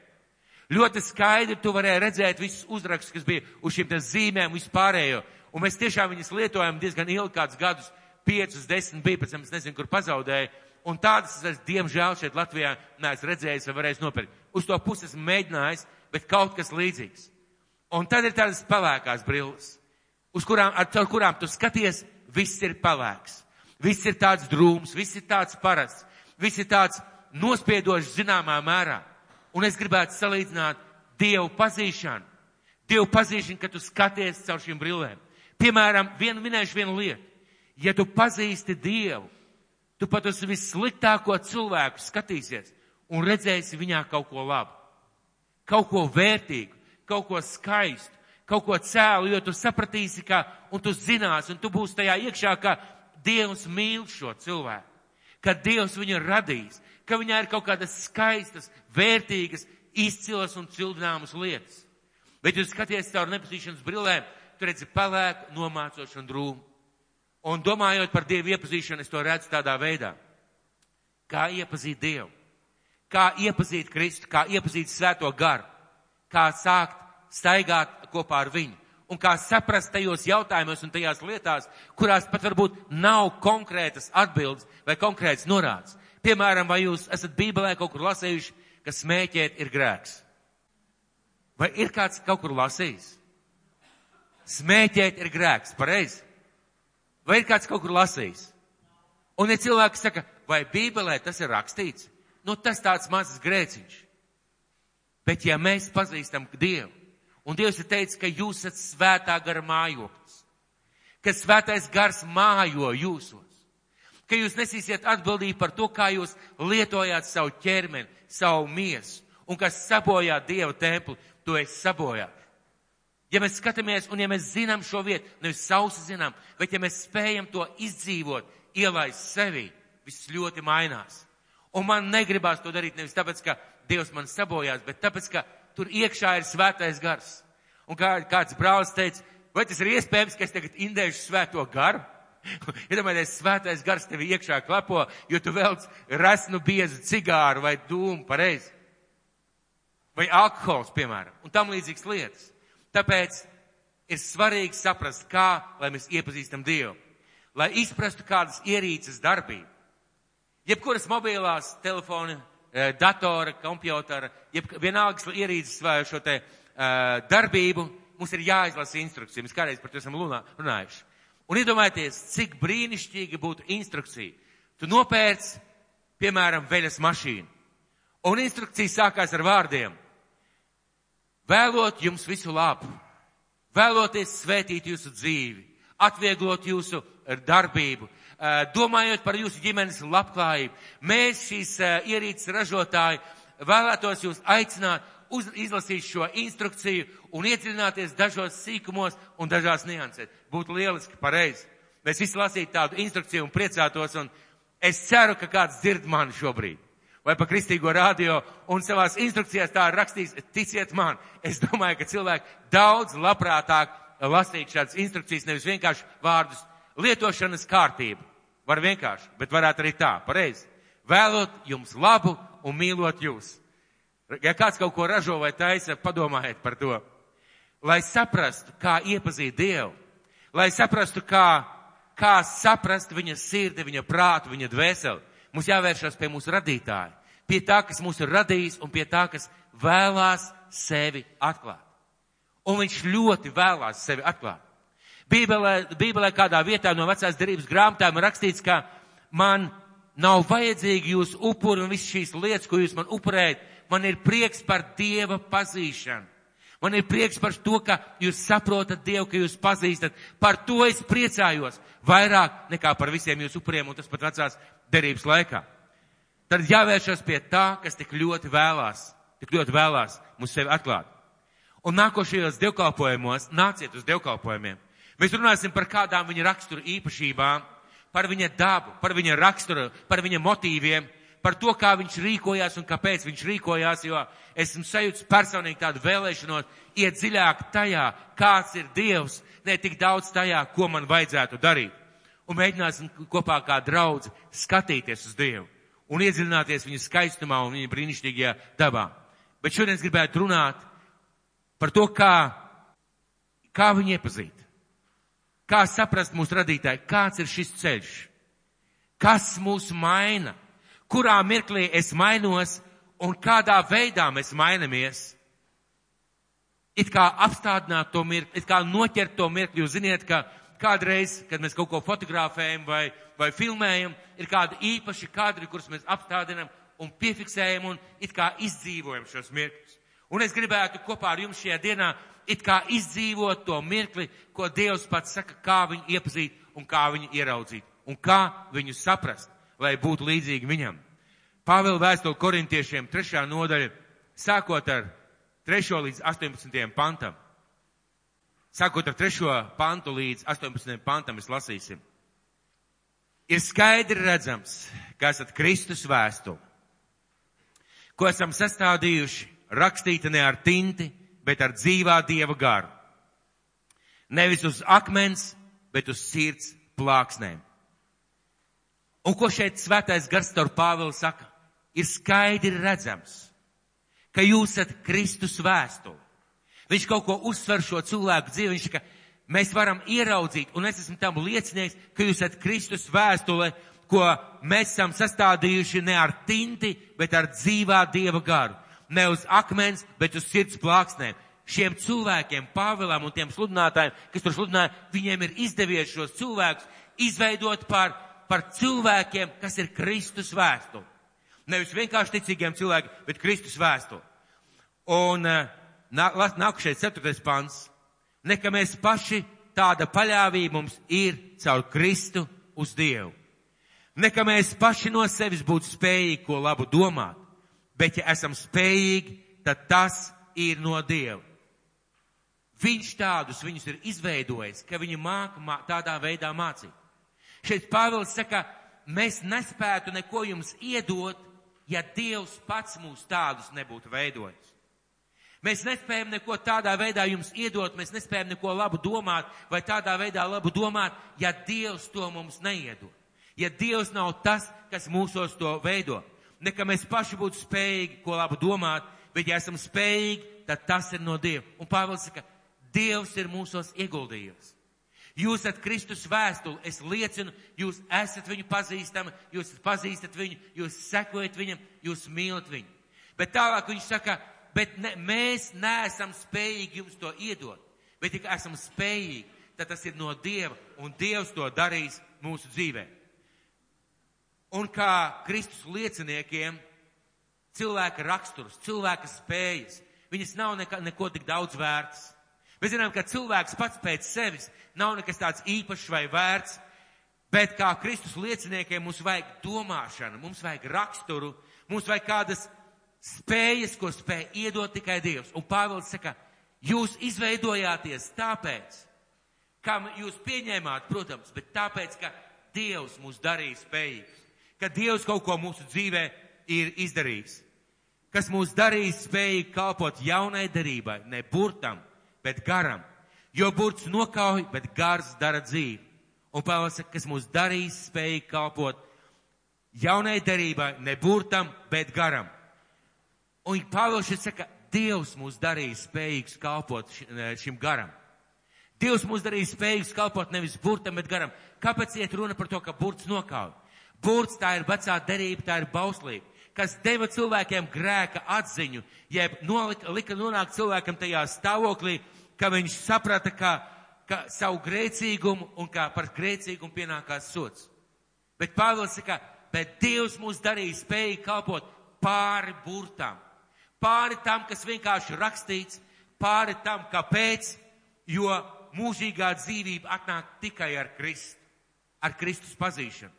Ļoti skaidri tu varēji redzēt visus uzrakstus, kas bija uz šīm zīmēm vispārējo. Un mēs tiešām viņas lietojam diezgan ilgi, kādus gadus, 5, 10 bija, pēc tam es nezinu, kur pazaudēju. Un tādas es, diemžēl, šeit Latvijā neesmu redzējis vai varējis nopirkt. Uz to pusi esmu mēģinājis, bet kaut kas līdzīgs. Un tad ir tādas pelēkās brilles, ar kurām tu skaties, viss ir pelēks. Viss ir tāds drūms, viss ir tāds parasts, viss ir tāds nospiedošs zināmā mērā. Un es gribētu salīdzināt Dievu pazīšanu. Dievu pazīšanu, kad tu skaties caur šīm brillēm. Piemēram, minēšu vienu lietu. Ja tu pazīsti Dievu, tu pat uz vissliktāko cilvēku skatīsies un redzēsi viņā kaut ko labu. Kaut ko vērtīgu, kaut ko skaistu, kaut ko cēlu, jo tu sapratīsi, un tu zinās, un tu būsi tajā iekšā, ka Dievs mīl šo cilvēku. Ka Dievs viņu ir radījis, ka viņā ir kaut kādas skaistas, vērtīgas, izcilas un cildināmas lietas. Bet jūs skaties caur nepazīšanas brillēm, tu redzi pelēku, nomācošu un drūmu. Un domājot par Dievu iepazīšanu, es to redzu tādā veidā. Kā iepazīt Dievu, kā iepazīt Kristu, kā iepazīt Svēto garu, kā sākt staigāt kopā ar viņu. Un kā saprast tajos jautājumos un tajās lietās, kurās pat varbūt nav konkrētas atbildes vai konkrētas norādes. Piemēram, vai jūs esat Bībelē kaut kur lasījuši, ka smēķēt ir grēks? Vai ir kāds kaut kur lasījis? Smēķēt ir grēks, pareizi? Vai ir kāds kaut kur lasījis? Un ja cilvēki saka, vai Bībelē tas ir rakstīts? Nu, tas tāds mazs grēciņš. Bet ja mēs pazīstam Dievu, un Dievs ir teicis, ka jūs esat svētā gara mājoklis, ka svētais gars mājo jūsos, ka jūs nesīsiet atbildību par to, kā jūs lietojāt savu ķermeni, savu miesu, un kas sabojā Dieva templi, to es sabojāt. Ja mēs skatāmies, un ja mēs zinām šo vietu, nevis sausi zinām, bet ja mēs spējam to izdzīvot, ielaist sevī, viss ļoti mainās. Un man negribās to darīt nevis tāpēc, ka Dievs man sabojās, bet tāpēc, ka tur iekšā ir svētais gars. Un kāds brālis teica, vai tas ir iespējams, ka es tagad indēšu svēto garu? Iedomājieties, svētais gars tevi iekšā klapo, jo tu velc resnu biezu cigāru vai dūmu, pareizi. Vai alkohols, piemēram, un tam līdzīgas lietas. Tāpēc ir svarīgi saprast, kā, lai mēs iepazīstam Dievu. Lai izprastu kādas ierīces darbību. Jebkuras mobilās telefoni, datora, kompjutara, vienalgas ierīces vai šo te darbību, mums ir jāizlasa instrukcija. Mēs kādreiz par to esam runājuši. Un iedomājieties, cik brīnišķīgi būtu instrukcija. Tu nopērc, piemēram, veļas mašīnu. Un instrukcija sākās ar vārdiem. Vēlot jums visu labu, vēloties svētīt jūsu dzīvi, atvieglot jūsu darbību, domājot par jūsu ģimenes labklājību. Mēs šīs ierīces ražotāji vēlētos jūs aicināt izlasīt šo instrukciju un iedziļināties dažos sīkumos un dažās niansēs. Būtu lieliski, pareizi. Mēs visi lasītu tādu instrukciju un priecātos, un es ceru, ka kāds dzird mani šobrīd. Vai pa kristīgo radio, un savās instrukcijās tā ir rakstījis, ticiet man, es domāju, ka cilvēki daudz labprātāk lasīt šādas instrukcijas, nevis vienkārši vārdus lietošanas kārtību. Var vienkārši, bet varētu arī tā, pareizi. Vēlot jums labu un mīlot jūs. Ja kāds kaut ko ražo vai taisa, padomājiet par to. Lai saprastu, kā iepazīt Dievu, lai saprastu, kā saprast viņa sirdi, viņa prātu, viņa dvēseli, mums jāvēršas pie mūsu radītāja, pie tā, kas mūs ir radījis un pie tā, kas vēlās sevi atklāt. Un viņš ļoti vēlās sevi atklāt. Bībelē kādā vietā no vecās derības grāmatām ir rakstīts, ka man nav vajadzīgi jūs upuri un visas šīs lietas, ko jūs man upurējat. Man ir prieks par Dieva pazīšanu. Man ir prieks par to, ka jūs saprotat Dievu, ka jūs pazīstat. Par to es priecājos vairāk nekā par visiem jūsu upuriem, un tas pat vecās derības laikā. Tad jāvēršas pie tā, kas tik ļoti vēlās mums sevi atklāt. Un nākošajos dievkalpojumos, nāciet uz dievkalpojumiem. Mēs runāsim par kādām viņa rakstura īpašībām, par viņa dabu, par viņa raksturu, par viņa motīviem, par to, kā viņš rīkojās un kāpēc viņš rīkojās, jo esmu sajūtis personīgi tādu vēlēšanos iet dziļāk tajā, kāds ir Dievs, ne tik daudz tajā, ko man vajadzētu darīt. Un mēģināsim kopā kā draudzi skatīties uz Dievu un iedziļināties viņa skaistumā un viņa brīnišķīgajā dabā. Bet šodien es gribētu runāt par to, kā viņu iepazīt. Kā saprast mūsu radītāju, kāds ir šis ceļš, kas mūs maina, kurā mirklī es mainos un kādā veidā mēs mainamies. It kā apstādināt to mirkli, it kā noķert to mirkli. Jūs ziniet, ka kādreiz, kad mēs kaut ko fotografējam vai filmējam, ir kādi īpaši kadri, kurus mēs apstādinam un piefiksējam un it kā izdzīvojam šos mirkļus. Un es gribētu kopā ar jums šajā dienā it kā izdzīvot to mirkli, ko Dievs pats saka, kā viņu iepazīt un kā viņu ieraudzīt un kā viņu saprast, lai būtu līdzīgi viņam. Pāvila vēstule korintiešiem 3. nodaļa, sākot ar 3. līdz 18. pantam. Sākot ar 3. pantu līdz 18. pantam mēs lasīsim. Ir skaidri redzams, ka esat Kristus vēstule, ko esam sastādījuši, rakstīta ne ar tinti, bet ar dzīvā Dieva garu. Nevis uz akmens, bet uz sirds plāksnēm. Un ko šeit svētais gars caur Pāvilu saka? Ir skaidri redzams, ka jūs esat Kristus vēstule. Viņš kaut ko uzsver šo cilvēku dzīvi. Viņš saka, mēs varam ieraudzīt, un es esmu tam liecinieks, ka jūs esat Kristus vēstule, ko mēs esam sastādījuši ne ar tinti, bet ar dzīvā Dieva garu. Ne uz akmens, bet uz sirds plāksnēm. Šiem cilvēkiem, Pāvilam un tiem sludinātājiem, kas tur sludināja, viņiem ir izdevies šos cilvēkus izveidot par cilvēkiem, kas ir Kristus vēstule. Nevis vienkārši ticīgiem cilvēkiem, bet Kristus vēstule. Un nākušais 4. pants. Nekā mēs paši tāda paļāvība mums ir caur Kristu uz Dievu. Nekā mēs paši no sevis būtu spējīgi ko labu domāt, bet ja esam spējīgi, tad tas ir no Dieva. Viņš viņus ir izveidojis, ka viņi māca tādā veidā mācīt. Šeit Pāvils saka, mēs nespētu neko jums iedot, ja Dievs pats mūs tādus nebūtu veidojis. Mēs nespējam neko tādā veidā jums iedot, mēs nespējam neko labu domāt vai tādā veidā labu domāt, ja Dievs to mums neiedod. Ja Dievs nav tas, kas mūsos to veido. Nekā mēs paši būtu spējīgi ko labu domāt, bet ja esam spējīgi, tad tas ir no Dieva. Un Pāvils saka, Dievs ir mūsos ieguldījis. Jūs esat Kristus vēstuli, es liecinu, jūs esat viņu pazīstami, jūs pazīstat viņu, jūs sekojat viņam, jūs mīlat viņu. Bet tālāk viņš saka, mēs neesam spējīgi jums to iedot, bet ja esam spējīgi, tad tas ir no Dieva, un Dievs to darīs mūsu dzīvē. Un kā Kristus lieciniekiem, cilvēka raksturs, cilvēka spējas, viņas nav neko tik daudz vērts. Mēs zinām, ka cilvēks pats pēc sevis nav nekas tāds īpašs vai vērts, bet kā Kristus lieciniekiem mums vajag domāšanu, mums vajag raksturu, mums vajag kādas spējas, ko spēj iedot tikai Dievs. Un Pāvils saka, jūs izveidojāties tāpēc, kā jūs pieņēmāt, protams, bet tāpēc, ka Dievs mūs darīja spējīgus, ka Dievs kaut ko mūsu dzīvē ir izdarījis, kas mūs darīja spējīgi kalpot jaunai derībai, ne burtam, bet garam. Jo burts nokauj, bet gars dara dzīvi. Un Pāvils saka, kas mūs darīs spējīgi kalpot jaunai derībai, ne burtam, bet garam. Un Pāvils šeit saka, Dievs mūs darīs spējīgus kalpot šim garam. Dievs mūs darīs spējīgus kalpot nevis burtam, bet garam. Kāpēc iet runa par to, ka burts nokauj? Burts tā ir vecā derība, tā ir bauslība, kas deva cilvēkiem grēka atziņu, jeb lika nonākt cilvēkam tajā stāvoklī, ka viņš saprata, ka savu grēcīgumu un kā par grēcīgumu pienākās sods. Bet Pāvils saka, bet Dievs mūs darīja spējīgi kalpot pāri burtām, pāri tam, kas vienkārši rakstīts, pāri tam, kāpēc, jo mūžīgā dzīvība atnāk tikai ar Kristu, ar Kristus pazīšanu.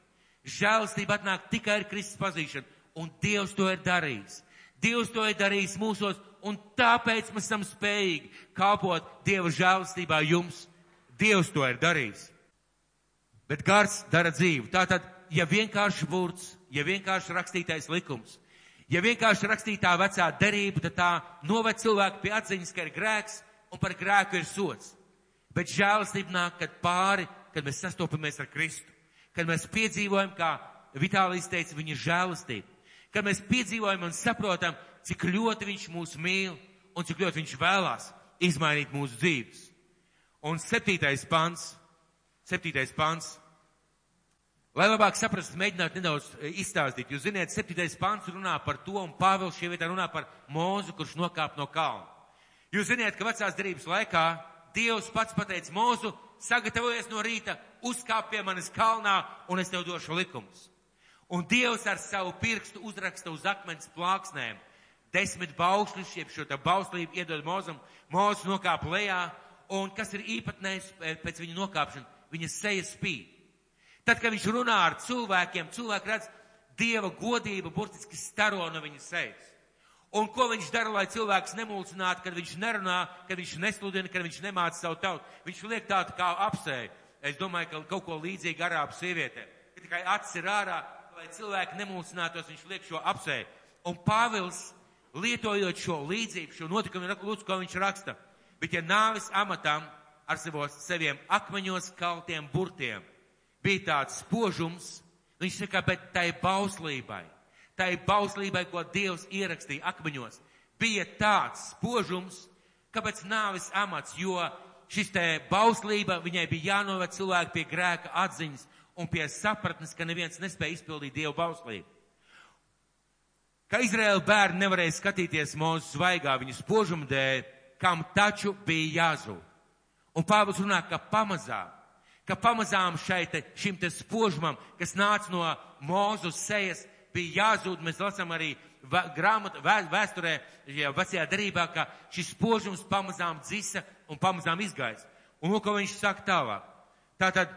Žēlastība atnāk tikai ar Kristus pazīšanu, un Dievs to ir darījis. Dievs to ir darījis mūsos, un tāpēc mēs esam spējīgi kalpot Dieva žēlastībā jums. Dievs to ir darījis. Bet gars dara dzīvi. Tātad, ja vienkārši burts, ja vienkārši rakstītais likums, ja vienkārši rakstītā vecā derība, tad tā noved cilvēku pie atziņas, ka ir grēks, un par grēku ir sods. Bet žēlastība nāk, kad mēs sastopamies ar Kristu, kad mēs piedzīvojam, kā Vitālijs teica, viņa žēlastība, kad mēs piedzīvojam un saprotam, cik ļoti viņš mūs mīl un cik ļoti viņš vēlās izmainīt mūsu dzīves. Un 7. pants, lai labāk saprastu, mēģināt nedaudz izstāstīt. Jūs ziniet, 7. pants runā par to, un Pāvils šie vietā runā par Mūzu, kurš nokāp no kalna. Jūs ziniet, ka vecās derības laikā Dievs pats pateica Mūzu, sagatavojies no rīta, uzkāp pie manis kalnā, un es tev došu likumus. Un Dievs ar savu pirkstu uzraksta uz akmens plāksnēm 10 baušļus, jeb šo tā bauslību iedod Mūzum. Mūzes nokāp lejā, un kas ir īpatnējs pēc viņa nokāpšana? Viņa seja spīd. Tad, kad viņš runā ar cilvēkiem, cilvēki redz Dieva godību burtiski staro no viņa sejas. Un ko viņš dara, lai cilvēks nemulcinātu, kad viņš nerunā, kad viņš nesludina, kad viņš nemāca savu tautu? Viņš liek tādu kā apsēju. Es domāju, ka kaut ko līdzīgi arābu sievietēm. Ka tikai acis ir ārā, lai cilvēki nemulcinātos, viņš liek šo apsēju. Un Pāvils, lietojot šo līdzību, šo notikumu, lūdzu, ko viņš raksta. Bet ja nāves amatam ar saviem akmeņos kaltiem burtiem bija tāds spožums, viņš saka, bet tai bauslībai, ko Dievs ierakstīja akmeņos, bija tāds spožums, kāpēc nāves amats, jo šis te bauslība, viņai bija jānoved cilvēku pie grēka atziņas un pie sapratnes, ka neviens nespēja izpildīt Dievu bauslību. Ka Izraēla bērni nevarēja skatīties Mūzes zvaigā viņu spožumu dēļ, kam taču bija jāzūd. Un Pāvils runā, ka pamazām šim te spožumam, kas nāca no Mūzes sejas, bija jāzūd. Mēs lasām arī vēsturē, vecajā derībā, ka šis spožums pamazām dzisa un pamazām izgaisa. Un ko viņš saka tālāk? Tātad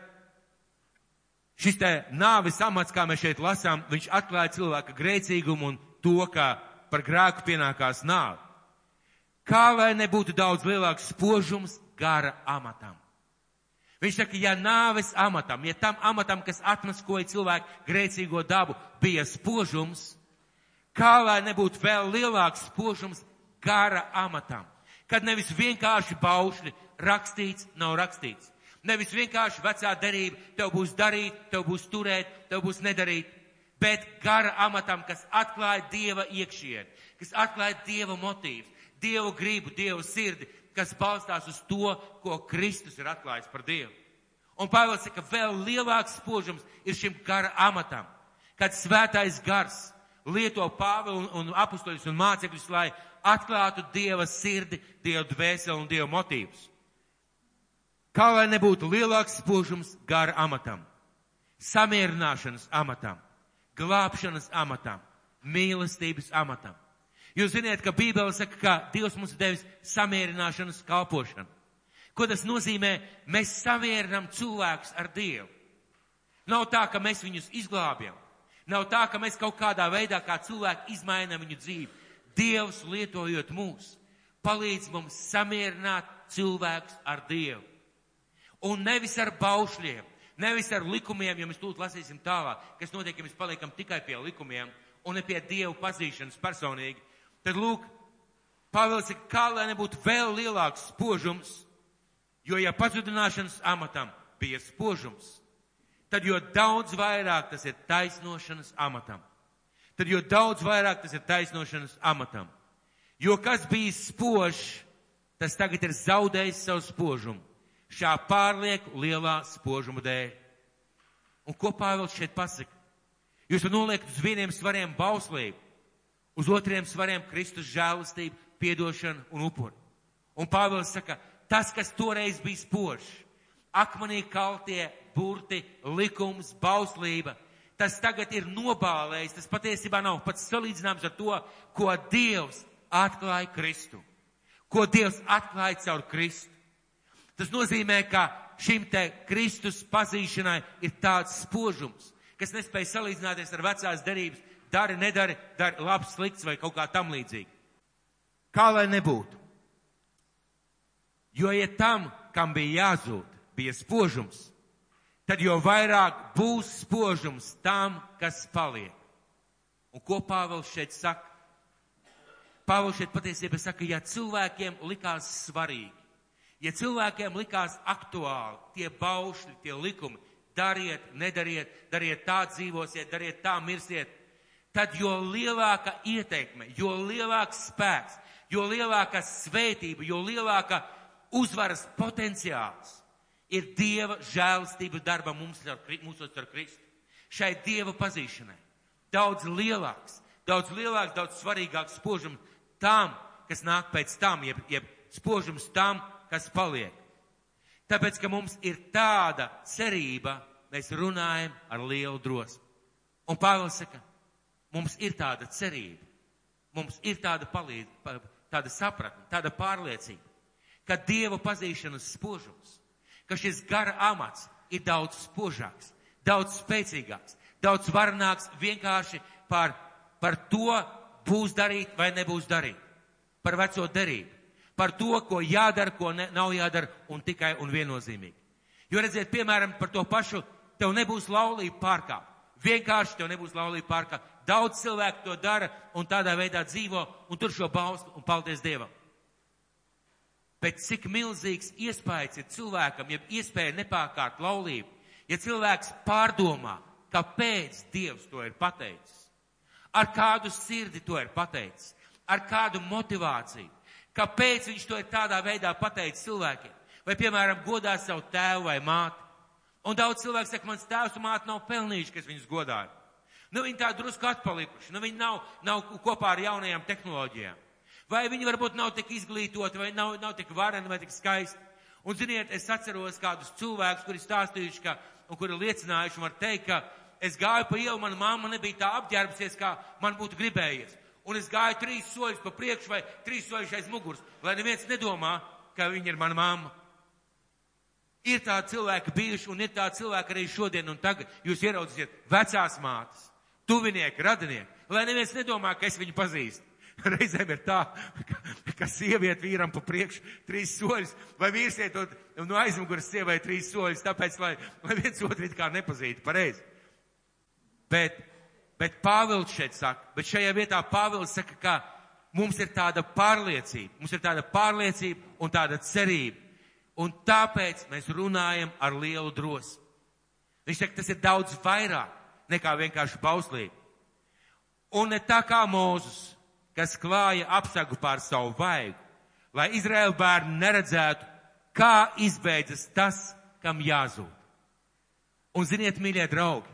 šis te nāves amats, kā mēs šeit lasām, viņš atklāja cilvēka grēcīgumu un to, ka par grēku pienākās nāve. Kā lai nebūtu daudz lielāks spožums gara amatam? Viņš saka, ja nāves amatam, ja tam amatam, kas atmaskoja cilvēku grēcīgo dabu, bija spožums, kā lai nebūtu vēl lielāks spožums gara amatam? Kad nevis vienkārši baušļi rakstīts, nav rakstīts. Nevis vienkārši vecā derība, tev būs darīt, tev būs turēt, tev būs nedarīt. Bet gara amatam, kas atklāja Dieva iekšieni, kas atklāja Dieva motīvus, Dievu gribu, Dievu sirdi, kas balstās uz to, ko Kristus ir atklājis par Dievu. Un Pāvils saka, vēl lielāks spožums ir šim gara amatam, kad svētais gars lieto Pāvilu un apustuļus un mācekļus, lai atklātu Dieva sirdi, Dieva dvēseli un Dieva motīvus. Kā lai nebūtu lielāks spožums gara amatam, samierināšanas amatam, glābšanas amatam, mīlestības amatam. Jūs ziniet, ka Bībele saka, ka Dievs mums ir devis samierināšanas kalpošanu. Ko tas nozīmē? Mēs samierinām cilvēkus ar Dievu. Nav tā, ka mēs viņus izglābjam. Nav tā, ka mēs kaut kādā veidā kā cilvēki izmainām viņu dzīvi. Dievs, lietojot mūs, palīdz mums samierināt cilvēkus ar Dievu. Un nevis ar baušļiem, nevis ar likumiem, jo mēs tūlīt lasīsim tālāk, kas notiek, ja mēs paliekam tikai pie likumiem un ne pie Dievu pazīšanas personīgi. Tad lūk, Pāvils saka, kā lai nebūtu vēl lielāks spožums, Jo, ja pazudināšanas amatam bija spožums, tad jo daudz vairāk tas ir taisnošanas amatam. Tad jo daudz vairāk tas ir taisnošanas amatam. Jo kas bija spožs, tas tagad ir zaudējis savu spožumu. Šā pārlieku lielā spožuma dēļ. Un ko Pāvils šeit pasaka? Jūs noliekat uz vieniem svariem bauslību, uz otriem svariem Kristus žēlastību, piedošanu un upuri. Un Pāvils saka, tas, kas toreiz bija spožs, akmenī kaltie burti, likums, bauslība, tas tagad ir nobālējis, tas patiesībā nav pats salīdzināms ar to, ko Dievs atklāja Kristu. Ko Dievs atklāja caur Kristu. Tas nozīmē, ka šim te Kristus pazīšanai ir tāds spožums, kas nespēja salīdzināties ar vecās derības, dari, nedari, dari labs, slikts vai kaut kā tam līdzīgi. Kā lai nebūtu? Jo, ja tam, kam bija jāzūd, bija spožums, tad jo vairāk būs spožums tam, kas paliek. Un ko Pāvils šeit saka? Pāvils šeit patiesībā saka, ja cilvēkiem likās svarīgi, ja cilvēkiem likās aktuāli tie baušļi, tie likumi, dariet, nedariet, dariet tā dzīvosiet, dariet tā mirsiet, tad jo lielāka ieteikme, jo lielāks spēks, jo lielāka svētība, jo lielāka uzvaras potenciāls ir Dieva žēlastība darba mūsos ar Kristu. Šai Dieva pazīšanai daudz lielāks, daudz svarīgāks spožums tam, kas nāk pēc tam, jeb spožums tam, kas paliek. Tāpēc, ka mums ir tāda cerība, mēs runājam ar lielu drosmi. Un Pāvils saka, mums ir tāda cerība, mums ir tāda sapratne, tāda pārliecība, ka Dieva pazīšanas spožums, ka šis gara amats ir daudz spožāks, daudz spēcīgāks, daudz varenāks vienkārši par to būs darīt vai nebūs darīt, par veco derību. Par to, ko jādara, ko nav jādara, un tikai un viennozīmīgi. Jo redziet, piemēram, par to pašu, tev nebūs laulība pārkāpt. Vienkārši tev nebūs laulība pārkāpt. Daudz cilvēku to dara un tādā veidā dzīvo un tur šo bauslu un paldies Dievam. Bet cik milzīgs iespējas ir cilvēkam, ja iespēja nepārkārt laulību, ja cilvēks pārdomā, kāpēc Dievs to ir pateicis, ar kādu sirdi to ir pateicis, ar kādu motivāciju. Kāpēc viņš to ir tādā veidā pateicis cilvēkiem? Vai, piemēram, godā savu tēvu vai māti? Un daudz cilvēku saka, mans tēvs un māte nav pelnījuši, kas viņus godāja. Nu, viņi tā drusku atpalikuši, nu, viņi nav kopā ar jaunajām tehnoloģijām. Vai viņi varbūt nav tik izglītoti, vai nav tik vareni, vai tik skaisti. Un, ziniet, es atceros kādus cilvēkus, kuri stāstījuši, un kuri liecinājuši, var teikt, ka es gāju pa ielu, mana mamma nebija tā apģērbsies, kā man būtu gribējies. Un es gāju 3 soļus pa priekšu vai 3 soļus aiz muguras, lai neviens nedomā, ka viņa ir mana mamma. Ir tādi cilvēki bijuši un ir tādi cilvēki arī šodien un tagad. Jūs ieraudzīsiet vecās mātes, tuvinieki, radinieki, lai neviens nedomā, ka es viņu pazīstu. Reizēm ir tā, ka sieviete vīram pa priekšu 3 soļus, vai vīrs iet no aizmuguras sievai 3 soļus, tāpēc, lai viens otru it kā nepazītu pareizi. Bet Pāvils šeit saka, bet šajā vietā Pāvils saka, ka mums ir tāda pārliecība un tāda cerība. Un tāpēc mēs runājam ar lielu drosmi. Viņš saka, tas ir daudz vairāk nekā vienkārši bauslība. Un ne tā kā Mūzes, kas klāja apsagu pār savu vaigu, lai Izraēla bērni neredzētu, kā izbeidzas tas, kam jāzūd. Un ziniet, mīļie draugi,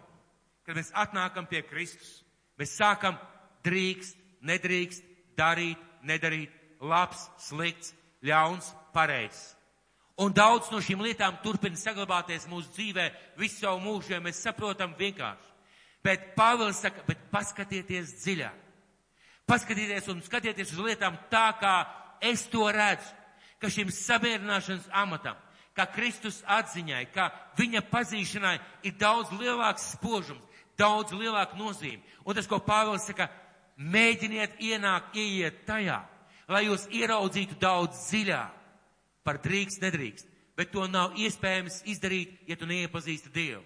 kad mēs atnākam pie Kristus, mēs sākam drīkst, nedrīkst, darīt, nedarīt, labs, slikts, ļauns, pareizs. Un daudz no šīm lietām turpina saglabāties mūsu dzīvē visu savu mūžu, ja mēs saprotam vienkārši. Bet Pāvils saka, bet paskatieties dziļāk. Paskatieties un skatieties uz lietām tā, kā es to redzu, ka šim samierināšanas amatam, kā Kristus atziņai, kā viņa pazīšanai ir daudz lielāks spožums, daudz lielāka nozīme. Un tas, ko Pāvils saka, mēģiniet ieiet tajā, lai jūs ieraudzītu daudz dziļāk par drīkst, nedrīkst. Bet to nav iespējams izdarīt, ja tu neiepazīsti Dievu.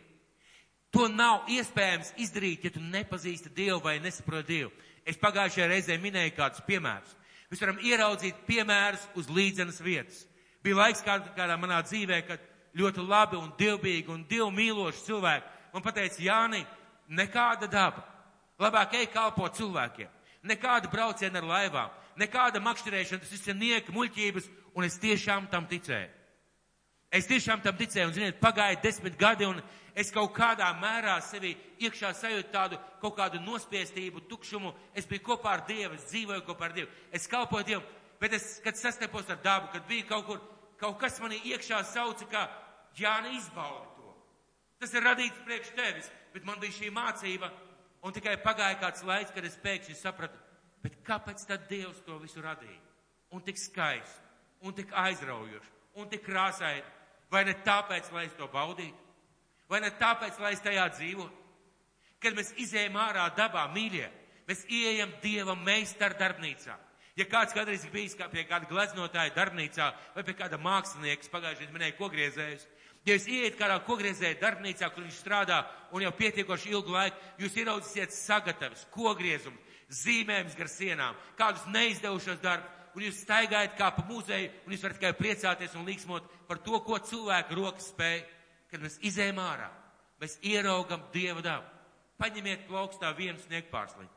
To nav iespējams izdarīt, ja tu nepazīsti Dievu vai nesaproti Dievu. Es pagājušajā reizē minēju kādus piemērus. Mēs varam ieraudzīt piemērus uz līdzenas vietas. Bija laiks kādā manā dzīvē, kad ļoti labi un dievbīgi un dievu mīloši cilvēki man pateica, Jāni, nekāda daba. Labāk ej kalpo cilvēkiem. Nekāda brauciena ar laivām, nekāda makšķerēšana, tas viss ir nieka, muļķības, un es tiešām tam ticēju. Es tiešām tam ticēju, un, ziniet, pagāja 10 gadi, un es kaut kādā mērā sevi iekšā sajūtu tādu kaut kādu nospiestību, tukšumu. Es biju kopā ar Dievu, es dzīvoju kopā ar Dievu, es kalpoju Dievu, bet es, kad sastapos ar dabu, kad bija kaut kas manī iekšā sauca, ka Jāni, izbaudi to. Tas ir radīts priekš tevis, bet man bija šī mācība, un tikai pagāja kāds laiks, kad es pēkšņi sapratu, bet kāpēc tad Dievs to visu radīja? Un tik skaisti, un tik aizraujoši, un tik krāsaini. Vai ne tāpēc, lai es to baudītu? Vai ne tāpēc, lai es tajā dzīvotu? Kad mēs izējam ārā dabā, mīļie, mēs ieejam Dieva meistara darbnīcā. Ja kāds kādreiz ir bijis pie kāda gleznotāja darbnīcā vai pie kāda mākslinieka, pagājušajā minēja kogriezējus, ja jūs ieiet kādā kogriezēja darbnīcā, kur viņš strādā un jau pietiekoši ilgu laiku, jūs ieraudzīsiet sagatavis, kogriezumus, zīmējumus gar sienām, kādus neizdevušos darbus, un jūs staigājat kā pa muzeju, un jūs varat tikai priecāties un līksmot par to, ko cilvēku rokas spēj. Kad mēs izējam ārā, mēs ieraugam Dieva dabu. Paņemiet plaukstā vienu sniegpārsliņu.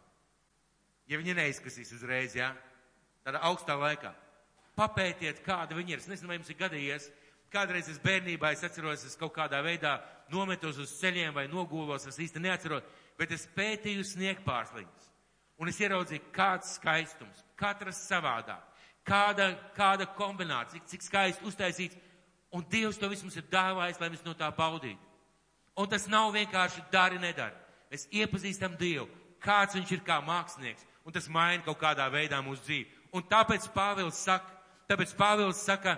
Ja viņi neizkasīs uzreiz, jā, tādā augstā laikā. Papētiet, kāda viņi ir. Es nezinu, vai jums ir gadījies. Kādreiz es bērnībā, es atceros, es kaut kādā veidā nometos uz ceļiem vai nogūlos, es īsti neatceros, bet es pētīju sniegpārsliņus. Un es ieraudzīju, kāds skaistums, katras savādāk, kāda kombinācija, cik skaisti uztaisīts, un Dievs to visu mums ir dāvājis, lai mēs no tā baudītu. Un tas nav vienkārši dari, nedari. Mēs iepazīstam Dievu, kāds viņš ir kā mākslinieks, un tas maina kaut kādā veidā mūsu dzīvi. Un tāpēc Pāvils saka,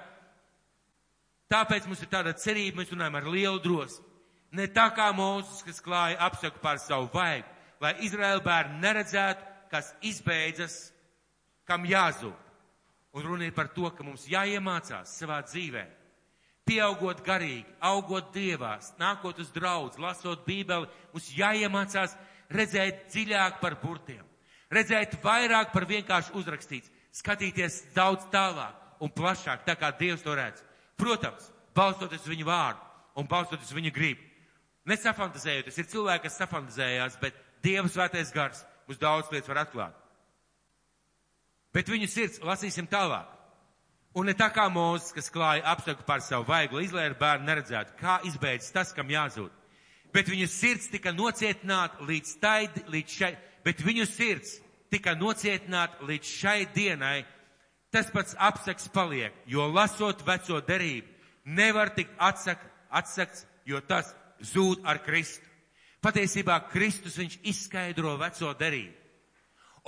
tāpēc mums ir tāda cerība, mēs runājam ar lielu drosmi. Ne tā kā Mūzes, kas klāja apsaku pār savu vaigu, lai Izraēla bērni neredzētu, kas izbeidzas, kam jāzūd. Un runa ir par to, ka mums jāiemācās savā dzīvē, pieaugot garīgi, augot Dievās, nākot uz draudzi, lasot Bībeli, mums jāiemācās redzēt dziļāk par burtiem, redzēt vairāk par vienkārši uzrakstīts, skatīties daudz tālāk un plašāk, tā kā Dievs to redz. Protams, balstoties viņu vārdu un balstoties viņu gribu. Nesafantazējoties, ir cilvēki, kas safantazējās, bet Dieva svētais gars mums daudz lietas var atklāt. Bet viņu sirds lasīsim tālāk. Un ne tā kā Mūzes, kas klāja apsaku pār savu vaigu, lai Izraēla bērni neredzētu, kā izbeidzas tas, kam jāzūd. Bet viņu sirds tika nocietināta līdz šai dienai. Tas pats apsaks paliek, jo lasot veco derību, nevar tikt atsakts, jo tas zūd ar Kristu. Patiesībā Kristus viņš izskaidro veco derību.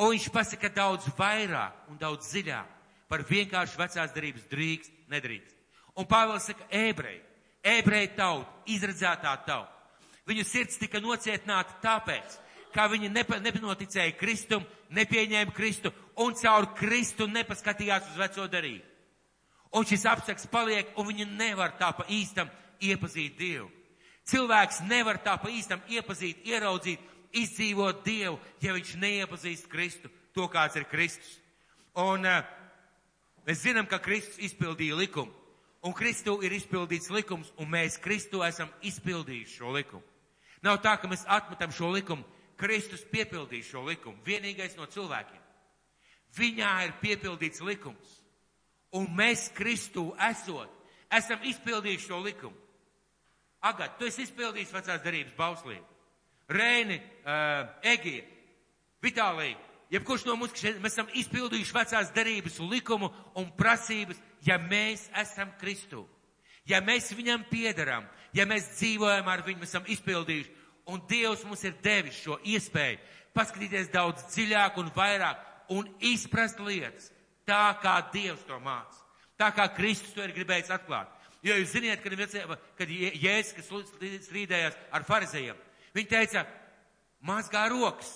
Un viņš pasaka daudz vairāk un daudz dziļāk par vienkārši vecās derības drīkst, nedrīkst. Un Pāvils saka, ebreji tauta, izredzētā tauta. Viņu sirds tika nocietināta tāpēc, ka viņi nepanoticēja Kristum, nepieņēma Kristu un caur Kristu nepaskatījās uz veco derību. Un šis apsaks paliek, un viņi nevar tā pa īstam iepazīt Dievu. Cilvēks nevar tā pa īstam iepazīt, ieraudzīt, izdzīvot Dievu, ja viņš neiepazīst Kristu, to kāds ir Kristus. Un mēs zinām, ka Kristus izpildīja likumu, un Kristu ir izpildīts likums, un mēs Kristu esam izpildījuši šo likumu. Nav tā, ka mēs atmetam šo likumu, Kristus piepildīja šo likumu, vienīgais no cilvēkiem. Viņā ir piepildīts likums, un mēs Kristu esam izpildījuši šo likumu. Agat, tu esi izpildījis vecās derības bauslību. Reini, Egija, Vitālija, jebkurš no mums, mēs esam izpildījuši vecās derības likumu un prasības, ja mēs esam Kristu. Ja mēs viņam piederam, ja mēs dzīvojam ar viņu, mēs esam izpildījuši. Un Dievs mums ir devis šo iespēju paskatīties daudz dziļāk un vairāk un izprast lietas tā, kā Dievs to māca. Tā kā Kristus to ir gribējis atklāt. Jo jūs ziniet, kad Jēzus, kas strīdējās ar farizejiem, viņi teica, mazgā rokas,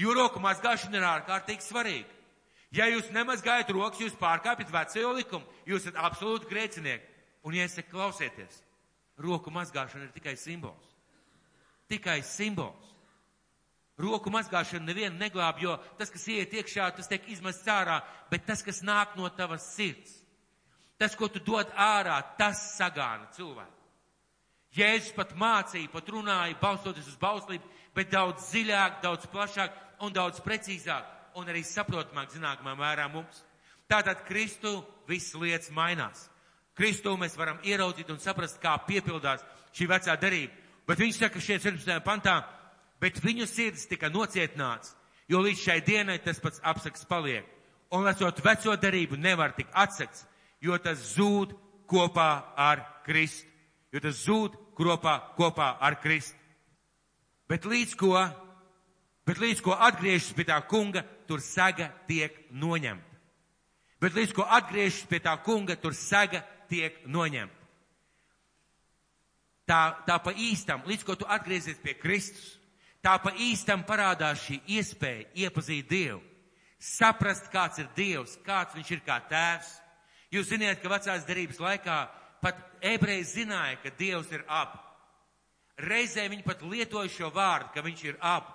jo roku mazgāšana ir ārkārtīgi svarīga. Ja jūs nemazgājat rokas, jūs pārkāpjat veco likumu, jūs esat absolūti grēcinieki. Un ja es saku, klausieties, roku mazgāšana ir tikai simbols. Tikai simbols. Roku mazgāšana nevienu neglāb, jo tas, kas iet iekšā, tas tiek izmests ārā, bet tas, kas nāk no tavas sirds, Tas, ko tu dod ārā, tas sagāna cilvēku. Jēzus pat mācīja, pat runāja, balstoties uz bauslību, bet daudz dziļāk, daudz plašāk un daudz precīzāk un arī saprotamāk zināmā mērā mums. Tātad Kristu visas lietas mainās. Kristu mēs varam ieraudzīt un saprast, kā piepildās šī vecā derība. Bet viņš saka šeit 17. pantā, bet viņu sirds tika nocietināts, jo līdz šai dienai tas pats apsaks paliek. Un lasot veco derību nevar tik atsakts, jo tas zūd kopā ar Kristu. Jo tas zūd kopā ar Kristu. Bet līdz ko atgriežas pie tā kunga, tur saga tiek noņemta. Bet līdz ko atgriežas pie tā kunga, tur saga tiek noņemta. Tā pa īstam, līdz ko tu atgriezies pie Kristus, tā pa īstam parādās šī iespēja iepazīt Dievu. Saprast, kāds ir Dievs, kāds viņš ir kā tēvs. Jūs ziniet, ka vecās derības laikā pat ebreji zināja, ka Dievs ir ab. Reizē viņi pat lietoja šo vārdu, ka viņš ir ab.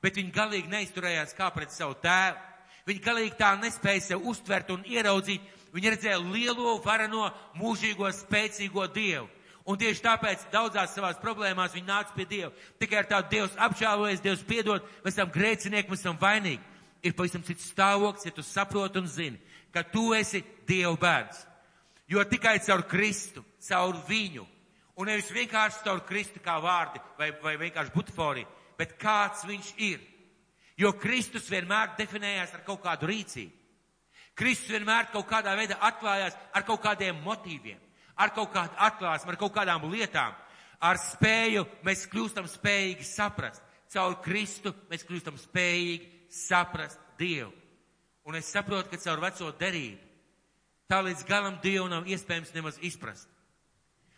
Bet viņi galīgi neizturējās kā pret savu tēvu. Viņi galīgi tā nespēja sev uztvert un ieraudzīt. Viņi redzēja lielo, vareno, mūžīgo, spēcīgo Dievu. Un tieši tāpēc daudzās savās problēmās viņi nāca pie Dieva. Tikai ar tādu Dievs apžēlojies, Dievs piedod, mēs esam grēcinieki, mēs esam vainīgi. Ir pavisam cits stāvoklis, ja tu saproti un zini, ka tu esi Dieva bērns. Jo tikai caur Kristu, caur viņu, un nevis vienkārši caur Kristu kā vārdi vai vienkārši butaforija, bet kāds viņš ir. Jo Kristus vienmēr definējās ar kaut kādu rīcību. Kristus vienmēr kaut kādā veidā atklājās ar kaut kādiem motīviem, ar kaut kādu atklāsmu, ar kaut kādām lietām. Ar spēju mēs kļūstam spējīgi saprast. Caur Kristu mēs kļūstam spējīgi saprast Dievu. Un es saprotu, ka caur veco derību tā līdz galam Dievu nav iespējams nemaz izprast.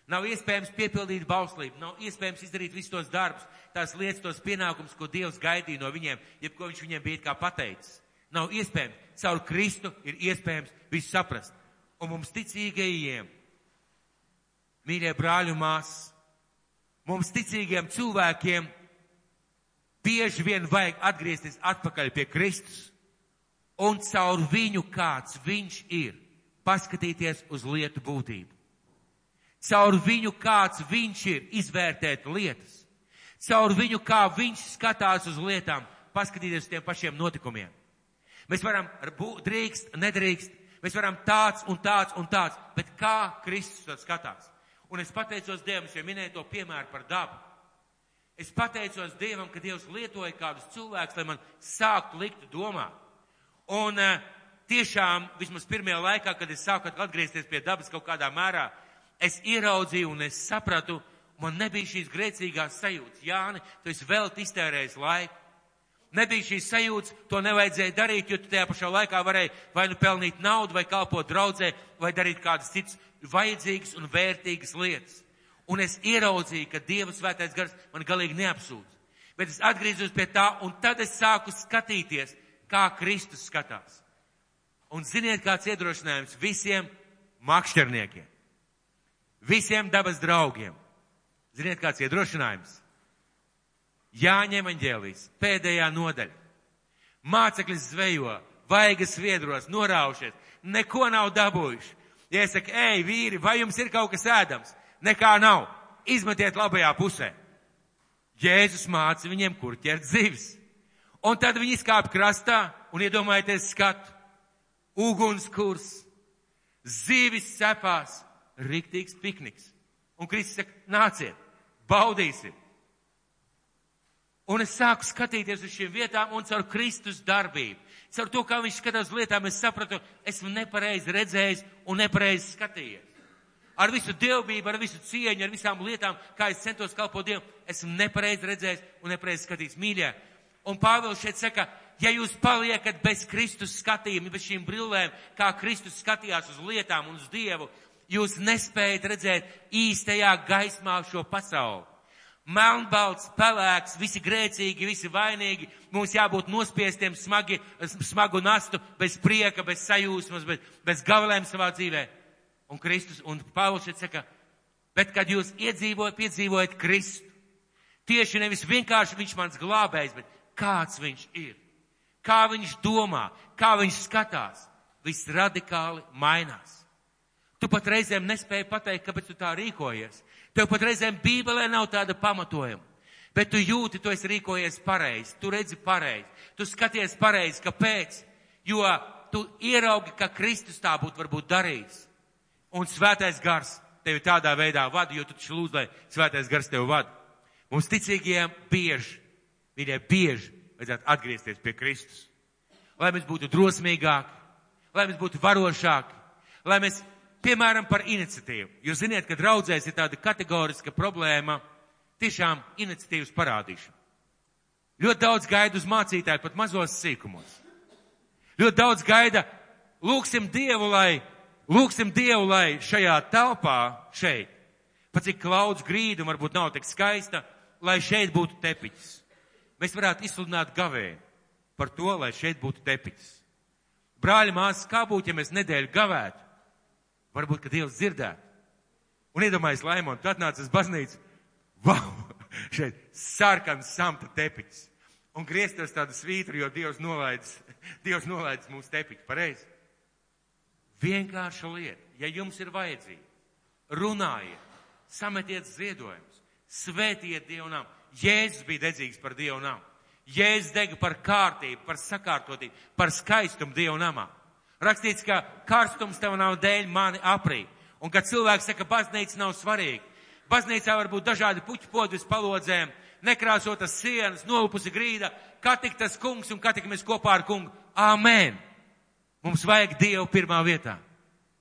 Nav iespējams piepildīt bauslību, nav iespējams izdarīt visus tos darbus, tās lietas, tos pienākumus, ko Dievs gaidīja no viņiem, jebko viņš viņiem bija kā pateicis. Nav iespējams. Caur Kristu ir iespējams visu saprast. Un mums ticīgajiem, mīļie brāļi un māsas, mums ticīgiem cilvēkiem bieži vien vajag atgriezties atpakaļ pie Kristus un caur viņu, kāds viņš ir, paskatīties uz lietu būtību. Caur viņu, kāds viņš ir, izvērtēt lietas. Caur viņu, kā viņš skatās uz lietām, paskatīties uz tiem pašiem notikumiem. Mēs varam drīkst, nedrīkst, mēs varam tāds un tāds un tāds, bet kā Kristus to skatās? Un es pateicos Dievam, es jau minēju to piemēru par dabu. Es pateicos Dievam, ka Dievs lietoja kādus cilvēkus, lai man sāktu likt domāt. Un tiešām, vismaz pirmajā laikā, kad es sāku atgriezties pie dabas kaut kādā mērā, es ieraudzīju un es sapratu, man nebija šīs grēcīgās sajūtas. Jāni, tu esi vēl iztērējis laiku. Nebija šīs sajūtas, to nevajadzēja darīt, jo tu tajā pašā laikā varēji vai nu pelnīt naudu, vai kalpot draudzē, vai darīt kādas citas vajadzīgas un vērtīgas lietas. Un es ieraudzīju, ka Dieva svētais gars man galīgi neapsūdz. Bet es atgriezos pie tā, un tad es sāku skatīties, kā Kristus skatās. Un ziniet, kāds iedrošinājums visiem makšķerniekiem, visiem dabas draugiem. Ziniet, kāds iedrošinājums? Jāņa evaņģēlijs, pēdējā nodaļa. Māceklis zvejo, vaigas viedros, noraušies, neko nav dabūjuši. Ja es saku, ej, vīri, vai jums ir kaut kas ēdams? Nekā nav. Izmetiet labajā pusē. Jēzus māca viņiem, kur ķert zivis. Un tad viņi izkāp krastā un iedomājieties skatu. Ugunskurs, zivis cepās, riktīgs pikniks. Un Kristus saka, nāciet, baudīsim. Un es sāku skatīties uz šīm vietām un caur Kristus darbību. Caur to, kā viņš skatās uz lietām, es sapratu, esmu nepareizi redzējis un nepareizi skatījies. Ar visu dievbību, ar visu cieņu, ar visām lietām, kā es centos kalpot Dievam, esmu nepareizi redzējis un nepareizi skatījis. Mīļie, un Pāvils šeit saka, ja jūs paliekat bez Kristus skatījuma, bez šīm brillēm, kā Kristus skatījās uz lietām un uz Dievu, jūs nespējat redzēt īstajā gaismā šo pasauli. Melnbalts, pelēks, visi grēcīgi, visi vainīgi, mums jābūt nospiestiem smagu nastu, bez prieka, bez sajūsmas, bez gavilēm savā dzīvē. Un Kristus, un Pāvils šeit saka, bet kad jūs piedzīvojat Kristu, tieši nevis vienkārši viņš mans glābējs, bet kāds viņš ir, kā viņš domā, kā viņš skatās, viss radikāli mainās. Tu pat reizēm nespēji pateikt, kāpēc tu tā rīkojies. Tev pat reizēm Bībelē nav tāda pamatojuma. Bet tu jūti, tu esi rīkojies pareizi, tu redzi pareizi, tu skaties pareizi, kāpēc? Jo tu ieraugi, ka Kristus tā būtu varbūt darījis. Un Svētais Gars tevi tādā veidā vada, jo tu taču lūdz, lai Svētais Gars tevi vada. Mums ticīgajiem bieži vajadzētu atgriezties pie Kristus. Lai mēs būtu drosmīgāki, lai mēs būtu varošāki, lai mēs, piemēram, par iniciatīvu. Jūs ziniet, ka draudzēs ir tāda kategoriska problēma, tiešām iniciatīvas parādīšana. Ļoti daudz gaida uz mācītāju, pat mazos sīkumos. Ļoti daudz gaida, lūksim Dievu, lai šajā telpā, šeit, pat cik klaudz grīda, varbūt nav tik skaista, lai šeit būtu tepiķis. Mēs varētu izsludināt gavēju par to, lai šeit būtu tepiķis. Brāļi, māsas, kā būtu, ja mēs nedēļu gavētu? Varbūt, ka Dievs dzirdētu. Un iedomājies, Laimon, tu atnāc uz baznīcu, vau, šeit sarkans samta tepiķis. Un grieztos tādu svītru, jo Dievs nolaidis mūsu tepiķu, pareizi? Vienkārša lieta, ja jums ir vajadzība, runājiet, sametiet ziedojumus, svētiet Dievu namu. Jēzus bija dedzīgs par Dievu namu. Jēzus dega par kārtību, par sakārtotību, par skaistumu Dievu namā. Rakstīts, ka karstums tev nav dēļ mani aprīt. Un kad cilvēks saka, baznīca nav svarīga. Baznīcā var būt dažādi puķu podi uz palodzēm, nekrāsotas sienas, nolupusi grīda, kā tik tas kungs un kā tik mēs kopā ar kungu. Āmen! Mums vajag Dievu pirmā vietā.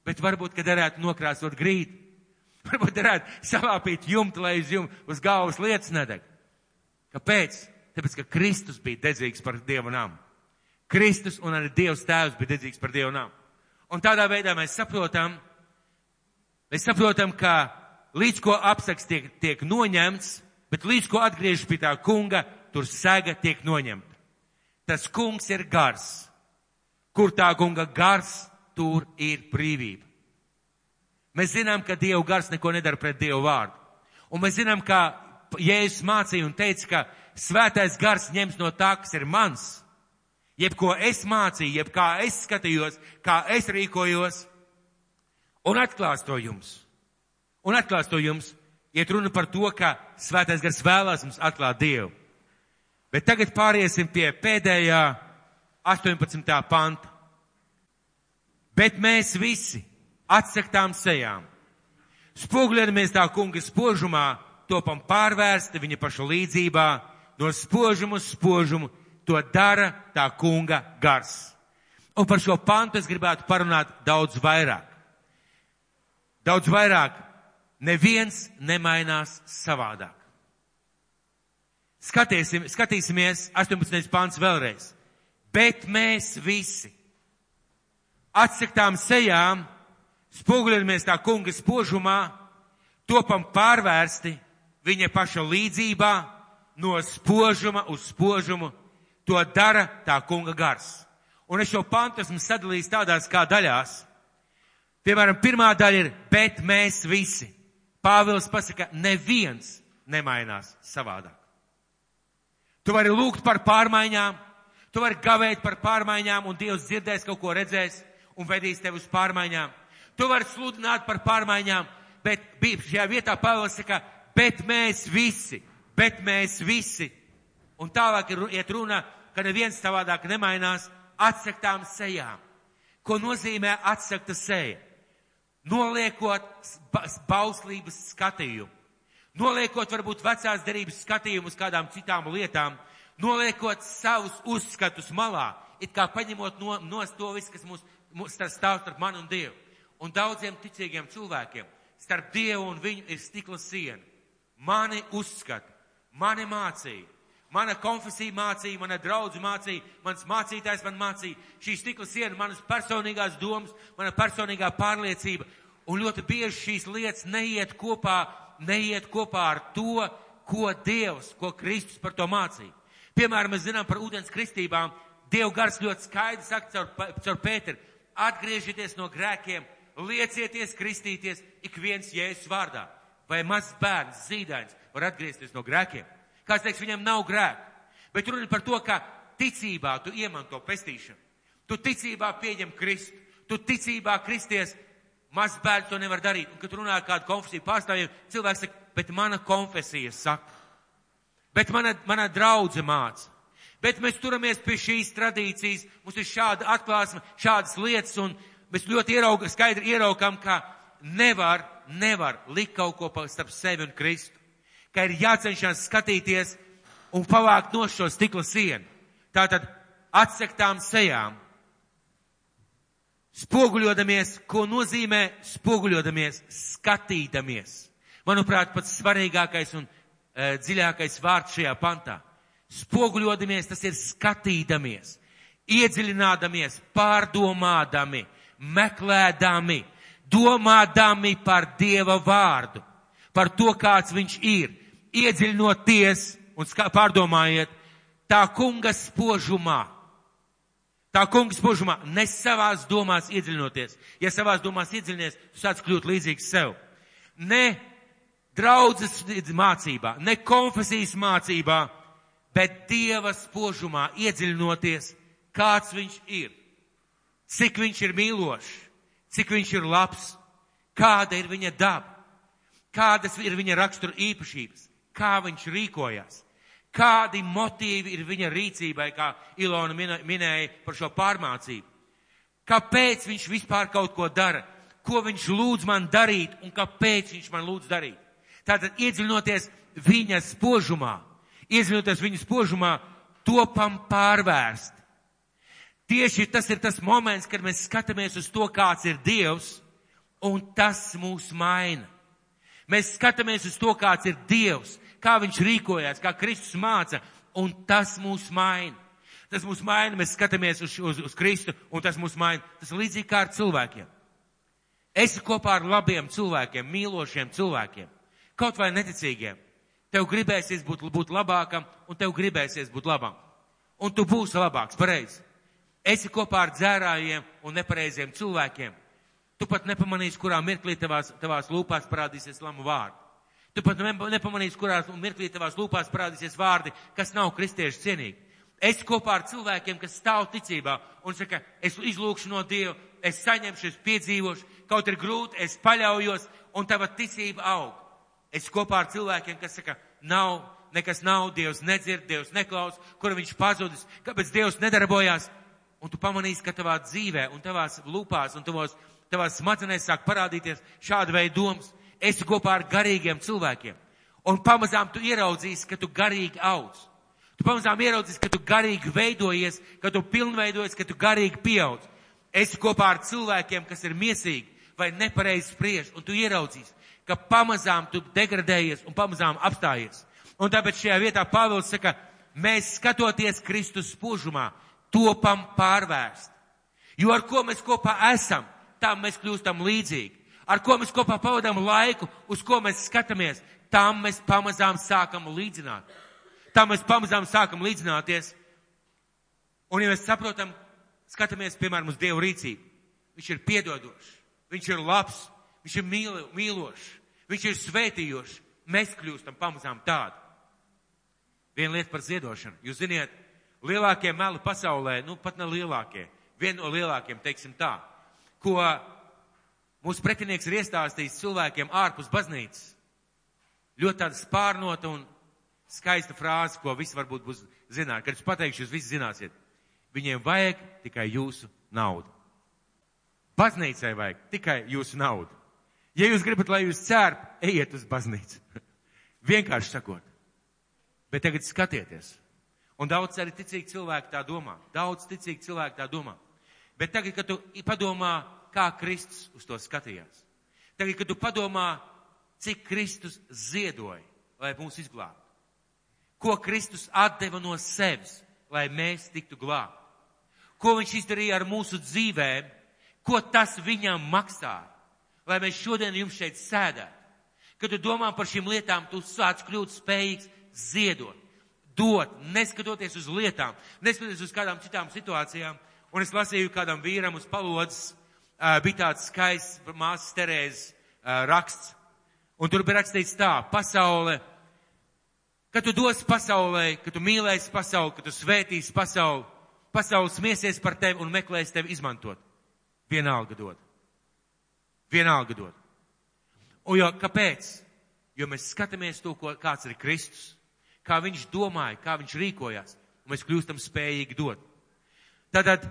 Bet varbūt, ka derētu nokrāsot grīdu. Varbūt derētu salāpīt jumtu, lai uz galvas lietas nedeg. Kāpēc? Tāpēc, ka Kristus bija dedzīgs par Dievu namu. Kristus un arī Dievs Tēvs bija dedzīgs par Dievu namu. Un tādā veidā mēs saprotam, ka līdz ko apsaks tiek noņemts, bet līdz ko atgriežas pie tā kunga, tur sega tiek noņemta. Tas kungs ir gars. Kur tā kunga gars, tur ir brīvība. Mēs zinām, ka Dieva gars neko nedara pret Dievu vārdu. Un mēs zinām, ka Jēzus mācīja un teica, ka Svētais Gars ņems no tā, kas ir mans. Jebko es mācīju, jeb kā es skatījos, kā es rīkojos, un atklās to jums. Iet runa par to, ka Svētais Gars vēlās mums atklāt Dievu. Bet tagad pāriesim pie pēdējā 18. panta. Bet mēs visi atsaktām sejām, spoguļojamies tā kunga spožumā, topam pārvērsti viņa paša līdzībā, no spožumu uz spožumu, to dara tā kunga gars. Un par šo pantu es gribētu parunāt daudz vairāk. Daudz vairāk. Neviens nemainās savādāk. Skatīsimies 18. pants vēlreiz. Bet mēs visi atsaktām sejām, spoguļojamies tā kunga spožumā, topam pārvērsti viņa paša līdzībā, no spožuma uz spožumu, to dara tā kunga gars. Un es šo pantu esmu sadalījis tādās kā daļās. Piemēram, pirmā daļa ir, bet mēs visi. Pāvils pasaka, neviens nemainās savādāk. Tu vari lūgt par pārmaiņām, tu vari gavēt par pārmaiņām, un Dievs dzirdēs, kaut ko redzēs un vedīs tevi uz pārmaiņām. Tu vari sludināt par pārmaiņām, bet šajā vietā Pāvils saka, bet mēs visi. Un tālāk iet runa, ka neviens savādāk nemainās atsaktām sejām. Ko nozīmē atsakta seja? Noliekot bauslības skatījumu. Noliekot varbūt vecās derības skatījumu uz kādām citām lietām. Noliekot savus uzskatus malā. It kā paņemot nost to visu, kas mums stāv starp mani un Dievu. Un daudziem ticīgiem cilvēkiem starp Dievu un viņu ir stikla siena. Mani uzskata, mani mācīja. Mana konfesija mācīja, mana draudze mācīja, mans mācītājs man mācīja, šī stikla siena, manas personīgās domas, mana personīgā pārliecība. Un ļoti bieži šīs lietas neiet kopā ar to, ko Dievs, ko Kristus par to mācīja. Piemēram, mēs zinām par ūdens kristībām, Dieva gars ļoti skaidri saka caur Pēteru, atgriežieties no grēkiem, liecieties kristīties ik viens Jēzus vārdā. Vai mazs bērns, zīdainis var atgriezties no grēkiem? Kāds teiks, viņam nav grēku. Bet runa par to, ka ticībā tu iemanto pestīšanu. Tu ticībā pieņem Kristu. Tu ticībā kristies Mazs bērns to nevar darīt. Un, kad runā kādu konfesiju pārstāvjiem, cilvēks saka, bet mana konfesija saka. Bet mana draudze māca. Bet mēs turamies pie šīs tradīcijas, mums ir šāda atklāsme, šādas lietas, un mēs ļoti skaidri ieraukam, ka nevar likt kaut ko starp sevi un Kristu. Ka ir jācenšas skatīties un pavākt no šo stikla sienu. Tātad atsektām sejām. Spoguļodamies, ko nozīmē spoguļodamies, skatīdamies. Manuprāt, pats svarīgākais un dziļākais vārds šajā pantā. Spoguļodamies, tas ir skatīdamies, iedziļinādamies, pārdomādami, meklēdami, domādami par Dieva vārdu, par to, kāds viņš ir, iedziļinoties un pārdomājiet tā kunga spožumā. Tā kunga spožumā, ne savās domās iedziļinoties. Ja savās domās iedziļinies, tu sāc kļūt līdzīgs sev. Ne draudzes mācībā, ne konfesijas mācībā, bet Dieva spožumā iedziļinoties, kāds viņš ir, cik viņš ir mīlošs, cik viņš ir labs, kāda ir viņa daba, kādas ir viņa rakstura īpašības, kā viņš rīkojās, kādi motīvi ir viņa rīcībai, kā Ilona minēja par šo pārmācību. Kāpēc viņš vispār kaut ko dara, ko viņš lūdz man darīt un kāpēc viņš man lūdz darīt. Tātad iedziļinoties viņa spožumā, topam pārvērst. Tieši tas ir tas moments, kad mēs skatāmies uz to, kāds ir Dievs, un tas mūs maina. Mēs skatāmies uz to, kāds ir Dievs, kā viņš rīkojās, kā Kristus māca, un tas mūs maina. Tas mūs maina, mēs skatāmies uz Kristu, un tas mūs maina. Tas ir līdzīgi kā ar cilvēkiem. Esi kopā ar labiem cilvēkiem, mīlošiem cilvēkiem, kaut vai neticīgiem. Tev gribēsies būt labākam, un tev gribēsies būt labam. Un tu būsi labāks, pareizi. Esi kopā ar dzērājiem un nepareiziem cilvēkiem. Tu pat nepamanīsi, kurā mirklī tavās lūpās parādīsies lamu vārdi. Tu pat nepamanīsi, kurā mirklī tavās lūpās parādīsies vārdi, kas nav kristiešu cienīgi. Esi kopā ar cilvēkiem, kas stāv ticībā un saka, es izlūkšu no Dieva, es saņemšu, es piedzīvošu, kaut ir grūti, es paļaujos, un tava ticība aug. Es kopā ar cilvēkiem, kas saka, nekas nav, Dievs nedzird, Dievs neklaus, kur viņš pazudis, kāpēc Dievs nedarbojās. Un tu pamanīsi, ka tavā dzīvē un tavās lūpās un tavās smadzenēs sāk parādīties šāda veida domas. Esi kopā ar garīgiem cilvēkiem. Un pamazām tu ieraudzīsi, ka tu garīgi audz. Tu pamazām ieraudzīsi, ka tu garīgi veidojies, ka tu pilnveidojies, ka tu garīgi pieaudz. Esi kopā ar cilvēkiem, kas ir miesīgi vai nepareizi spriež, un tu ieraudzīsi, ka pamazām tu degradējies un pamazām apstājies. Un tāpēc šajā vietā Pāvils saka, mēs skatoties Kristus spožumā, topam pārvērst. Jo ar ko mēs kopā esam, tam mēs kļūstam līdzīgi. Ar ko mēs kopā pavadām laiku, uz ko mēs skatāmies, tam mēs pamazām sākam līdzināt. Tam mēs pamazām sākam līdzināties. Un ja mēs saprotam, skatāmies, piemēram, uz Dievu rīcību. Viņš ir piedodošs, viņš ir labs, viņš ir mīlošs, viņš ir svētījošs. Mēs kļūstam pamazām tādi. Viena lieta par ziedošanu. Jūs ziniet, lielākie meli pasaulē, pat ne lielākie, viena no lielākiem, teiksim tā, ko mūsu pretinieks ir iestāstījis cilvēkiem ārpus baznīcas. Ļoti tāda spārnota un skaista frāze, ko visi varbūt būs zināt. Kad es pateikšu, jūs visi zināsiet. Viņiem vajag tikai jūsu naudu. Baznīcai vajag tikai jūsu naudu. Ja jūs gribat, lai jūs cērp, ejiet uz baznīcu. Vienkārši sakot. Bet tagad skatieties. Un daudz arī ticīgi cilvēki tā domā. Bet tagad, kad tu padomā, kā Kristus uz to skatījās. Tagad, kad tu padomā, cik Kristus ziedoja, lai mūs izglābtu. Ko Kristus atdeva no sevis, lai mēs tiktu glābti. Ko viņš izdarīja ar mūsu dzīvēm, ko tas viņam maksāja, lai mēs šodien jums šeit sēdētu. Kad tu domā par šīm lietām, tu sāc kļūt spējīgs ziedot, dot, neskatoties uz lietām, neskatoties uz kādām citām situācijām. Un es lasīju kādam vīram uz palodzes, bija tāds skaists māsas Terēzes raksts. Un tur bija rakstīts tā, pasaule, kad tu dos pasaulē, kad tu mīlēsi pasauli, kad tu svētīsi pasauli, pasaule smiesies par tevi un meklēs tevi izmantot. Vienalga dod. Vienalga dod. Un jo, kāpēc? Jo mēs skatāmies to, kāds ir Kristus, kā viņš domāja, kā viņš rīkojās, un mēs kļūstam spējīgi dot. Tātad,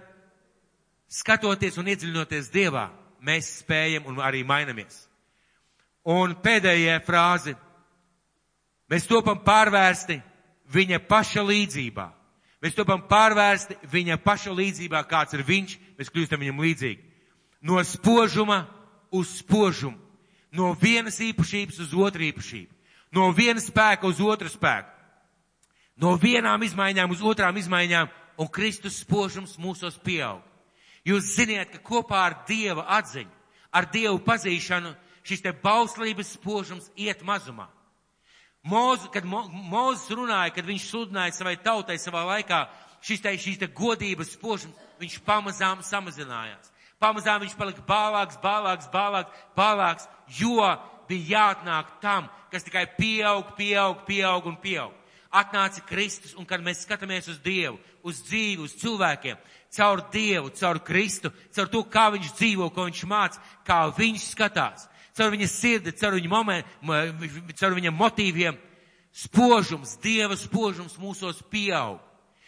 skatoties un iedziļinoties Dievā, mēs spējam un arī mainamies. Un pēdējā frāze. Mēs topam pārvērsti viņa paša līdzībā. Mēs topam pārvērsti viņa paša līdzībā, kāds ir viņš, mēs kļūstam viņam līdzīgi. No spožuma uz spožumu. No vienas īpašības uz otru īpašību. No viena spēka uz otru spēku. No vienām izmaiņām uz otrām izmaiņām, un Kristus spožums mūsos pieaug. Jūs ziniet, ka kopā ar Dieva atziņu, ar Dievu pazīšanu, šis te bauslības spožums iet mazumā. Kad Mūzes runāja, kad viņš sludināja savai tautai savā laikā, šīs te godības spožums, viņš pamazām samazinājās. Pamazām viņš palika bālāks, jo bija jāatnāk tam, kas tikai pieaug un pieaug. Atnāca Kristus, un kad mēs skatāmies uz Dievu, uz dzīvi, uz cilvēkiem, caur Dievu, caur Kristu, caur to, kā viņš dzīvo, ko viņš māca, kā viņš skatās, caur viņa sirdi, caur viņa motīviem, spožums, Dieva spožums mūsos pieaug.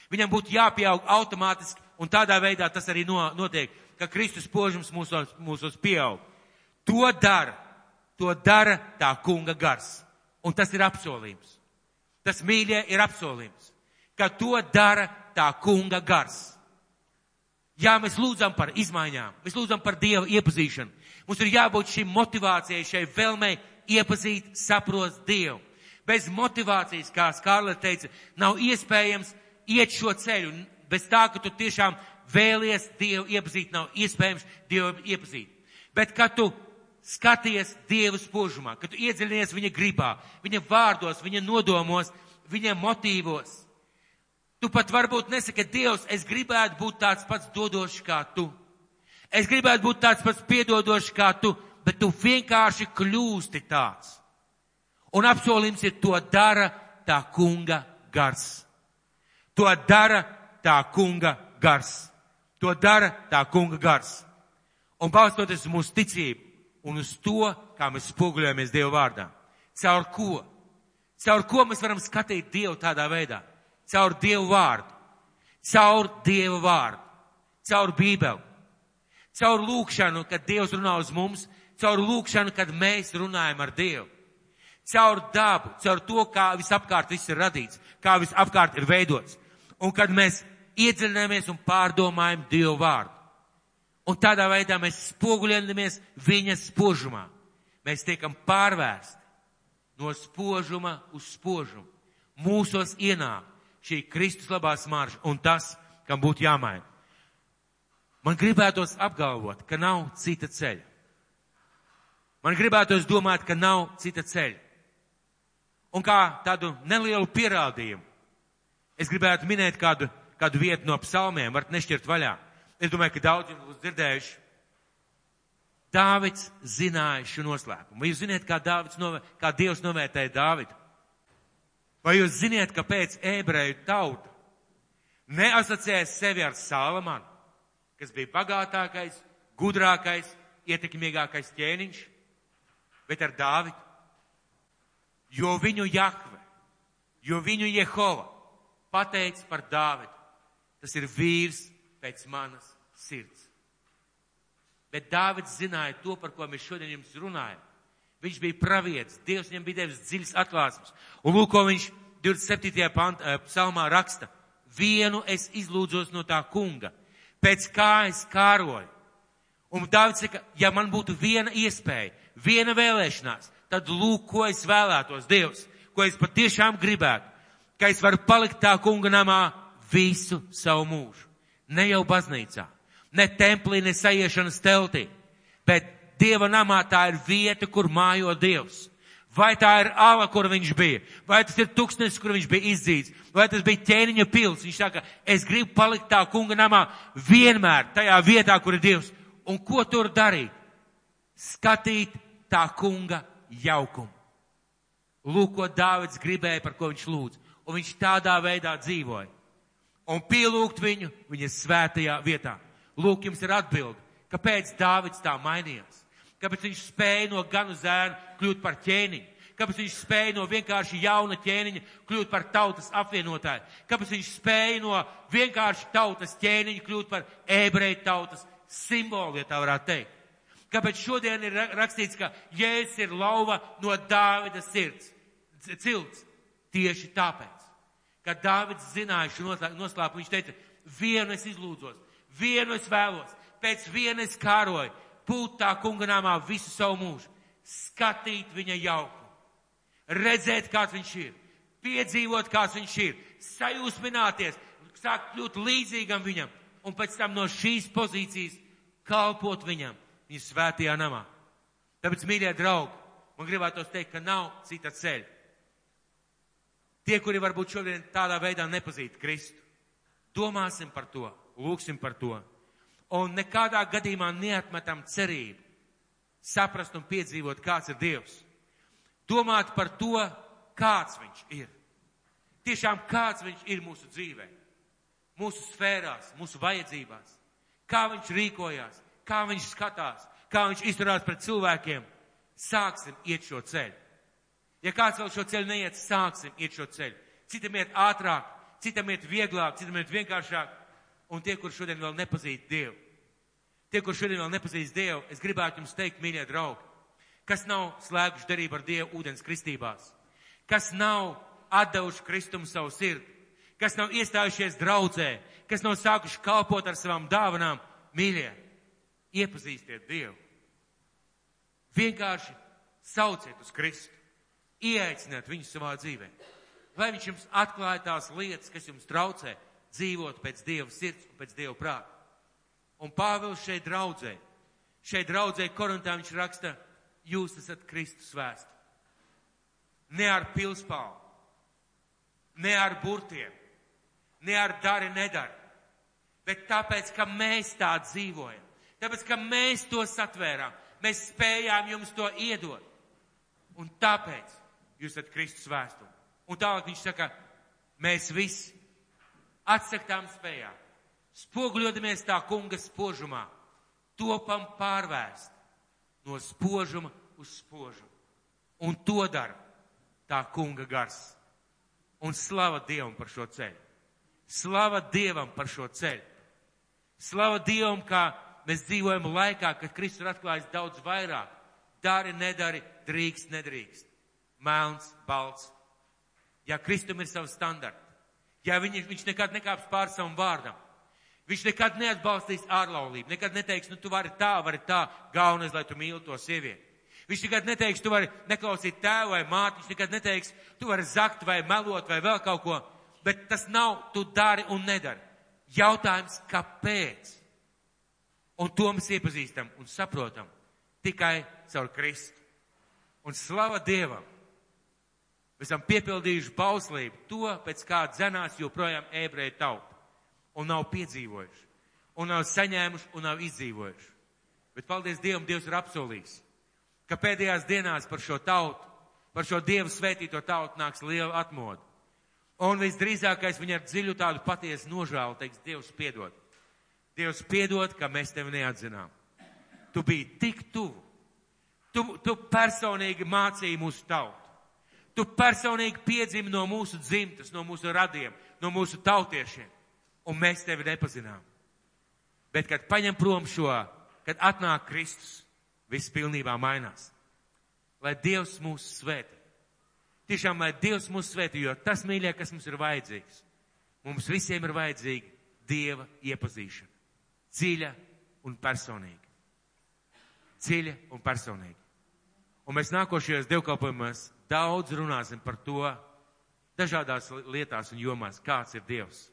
Viņam būtu jāpieaug automātiski, un tādā veidā tas arī notiek, ka Kristus spožums mūsos pieaug. To dara tā kunga gars. Un tas ir apsolījums. Tas, mīļie, ir apsolījums, ka to dara tā kunga gars. Jā, mēs lūdzam par izmaiņām, mēs lūdzam par Dieva iepazīšanu. Mums ir jābūt šī motivācijai, šai vēlmei iepazīt, saprast Dievu. Bez motivācijas, kā Skārlete teica, nav iespējams iet šo ceļu. Bez tā, ka tu tiešām vēlies Dievu iepazīt, nav iespējams Dievu iepazīt. Bet, kad tu skaties Dieva spožumā, kad tu iedziļinies viņa gribā, viņa vārdos, viņa nodomos, viņa motīvos, tu pat varbūt nesaki, Dievs, es gribētu būt tāds pats dodošs kā tu. Es gribētu būt tāds pats piedodošs kā tu, bet tu vienkārši kļūsti tāds. Un apsolījums ir, to dara tā kunga gars. To dara tā kunga gars. To dara tā kunga gars. Un balstoties uz mūsu ticību un uz to, kā mēs spoguļojamies Dieva vārdā. Caur ko? Caur ko mēs varam skatīt Dievu tādā veidā? Caur Dievu vārdu. Caur Dievu vārdu. Caur Bībeli. Caur lūkšanu, kad Dievs runā uz mums. Caur lūkšanu, kad mēs runājam ar Dievu. Caur dabu, caur to, kā visapkārt viss ir radīts, kā visapkārt ir veidots. Un kad mēs iedziļināmies un pārdomājam Dievu vārdu. Un tādā veidā mēs spoguļojamies viņa spožumā. Mēs tiekam pārvērsti no spožuma uz spožumu. Mūsos ienāk šī Kristus labā smarža un tas, kam būtu jāmaina. Man gribētos apgalvot, ka nav cita ceļa. Man gribētos domāt, ka nav cita ceļa. Un kā tādu nelielu pierādījumu, es gribētu minēt kādu vietu no psalmiem, varat nešķirt vaļā. Es domāju, ka daudz jums būs dzirdējuši. Dāvids zināja šo noslēpumu. Vai jūs ziniet, kā Dievs novērtēja Dāvidu? Vai jūs ziniet, kāpēc ebreju tauta neasociēja sevi ar Salamanu, kas bija bagātākais, gudrākais, ietekmīgākais ķēniņš, bet ar Dāvidu? Jo viņu Jahve, jo viņu Jehova pateica par Dāvidu. Tas ir vīrs pēc manas sirds. Bet Dāvids zināja to, par ko mēs šodien jums runājam. Viņš bija pravietis, Dievs viņam bija devis dziļas atklāsmes. Un lūk, ko viņš 27. psalmā raksta. Vienu es izlūdzos no tā kunga, pēc kā es kāroju. Un Dāvids saka, ja man būtu viena iespēja, viena vēlēšanās, tad lūk, ko es vēlētos, Dievs, ko es patiešām gribētu, ka es varu palikt tā kunga namā visu savu mūžu. Ne jau baznīcā, ne templī, ne saiešanas teltī, bet Dieva namā tā ir vieta, kur mājo Dievs. Vai tā ir ala, kur viņš bija, vai tas ir tūkstnesis, kur viņš bija izdzīts, vai tas bija ķēniņa pils. Viņš saka, es gribu palikt tā kunga namā vienmēr tajā vietā, kur ir Dievs. Un ko tur darīt? Skatīt tā kunga jaukumu. Lūk, ko Dāvids gribēja, par ko viņš lūdz. Un viņš tādā veidā dzīvoja. Un pielūgt viņu viņa svētajā vietā. Lūk, jums ir atbildi, kāpēc Dāvids tā mainījās. Kāpēc viņš spēja no ganu zēna kļūt par ķēniņu? Kāpēc viņš spēja no vienkārši jauna ķēniņa kļūt par tautas apvienotāju? Kāpēc viņš spēja no vienkārši tautas ķēniņa kļūt par ebreju tautas simbolu, ja tā varētu teikt? Kāpēc šodien ir rakstīts, ka Jēzus ir lauva no Dāvida cilts? Tieši tāpēc, ka Dāvids zināja šo noslēpumu, viņš teica, vienu es izlūdzos, vienu es vēlos, pēc viena es kāroju, būt tā kunga namā visu savu mūžu, skatīt viņa jauku, redzēt, kāds viņš ir, piedzīvot, kāds viņš ir, sajūsmināties, sākt kļūt līdzīgam viņam, un pēc tam no šīs pozīcijas kalpot viņam, viņa svētajā namā. Tāpēc, mīļie draugi, man gribētos teikt, ka nav cita ceļa. Tie, kuri varbūt šodien tādā veidā nepazīst Kristu, domāsim par to, lūksim par to, un nekādā gadījumā neatmetam cerību, saprast un piedzīvot, kāds ir Dievs. Domāt par to, kāds viņš ir. Tiešām kāds viņš ir mūsu dzīvē, mūsu sfērās, mūsu vajadzībās, kā viņš rīkojās, kā viņš skatās, kā viņš izturās pret cilvēkiem. Sāksim iet šo ceļu. Ja kāds vēl šo ceļu neiet, sāksim iet šo ceļu. Citam iet ātrāk, citam iet vieglāk, citam iet vienkāršāk. Un tie, kur šodien vēl nepazīst Dievu, es gribētu jums teikt, mīļie draugi, kas nav slēguši derību ar Dievu ūdens kristībās, kas nav atdevuši Kristumu savu sirdi, kas nav iestājušies draudzē, kas nav sākuši kalpot ar savām dāvanām, mīļie, iepazīstiet Dievu. Vienkārši sauciet uz Kristu. Ieaiciniet viņu savā dzīvē. Lai viņš jums atklāja tās lietas, kas jums traucē dzīvot pēc Dieva sirds un pēc Dieva prāta. Un Pāvils šeit draudzē Korintā viņš raksta, jūs esat Kristus vēsti. Ne ar pilspālu, ne ar burtiem, ne ar dari nedari, bet tāpēc, ka mēs tā dzīvojam, tāpēc, ka mēs to satvērām, mēs spējām jums to iedot. Un tāpēc jūs esat Kristus vēstuli. Un tālāk viņš saka, mēs visi atsaktām spējām, spoguļodamies tā kunga spožumā, topam pārvērst no spožuma uz spožumu. Un to dara tā kunga gars. Un slava Dievam par šo ceļu. Slava Dievam par šo ceļu. Slava Dievam, kā mēs dzīvojam laikā, kad Kristus ir atklājis daudz vairāk. Dari, nedari, drīkst, nedrīkst. Melns, balts. Ja Kristum ir savs standarti, ja viņš nekad nekāps pār savam vārdam, viņš nekad neatbalstīs ārlaulību, nekad neteiks, tu vari tā, galvenais, lai tu mīli to sievieti. Viņš nekad neteiks, tu vari neklausīt tēvu vai māti, viņš nekad neteiks, tu vari zakt vai melot vai vēl kaut ko, bet tas nav, tu dari un nedari. Jautājums, kāpēc? Un to mēs iepazīstam un saprotam tikai caur Kristu. Un slava Dievam! Mēs esam piepildījuši bauslību to, pēc kā dzenās joprojām ebreju tauta. Un nav piedzīvojuši. Un nav saņēmuši un nav izdzīvojuši. Bet paldies Dievam, Dievs ir apsolījis, ka pēdējās dienās par šo tautu, par šo Dievu svētīto tautu nāks liela atmoda. Un visdrīzākais viņa ar dziļu tādu patiesu nožēlu teiks, Dievs piedod. Dievs piedod, ka mēs tevi neatzinām. Tu biji tik tuvu. Tu personīgi mācīji mūsu tautu. Tu personīgi piedzimi no mūsu dzimtas, no mūsu radiem, no mūsu tautiešiem. Un mēs tevi nepazinām. Bet, kad paņem prom šo, kad atnāk Kristus, viss pilnībā mainās. Lai Dievs mūs svētī. Tiešām, lai Dievs mūs svētī, jo tas, mīļie, kas mums ir vajadzīgs. Mums visiem ir vajadzīga Dieva iepazīšana. Dziļa un personīga. Dziļa un personīga. Un mēs nākošajos dievkalpojumos daudz runāsim par to dažādās lietās un jomās, kāds ir Dievs.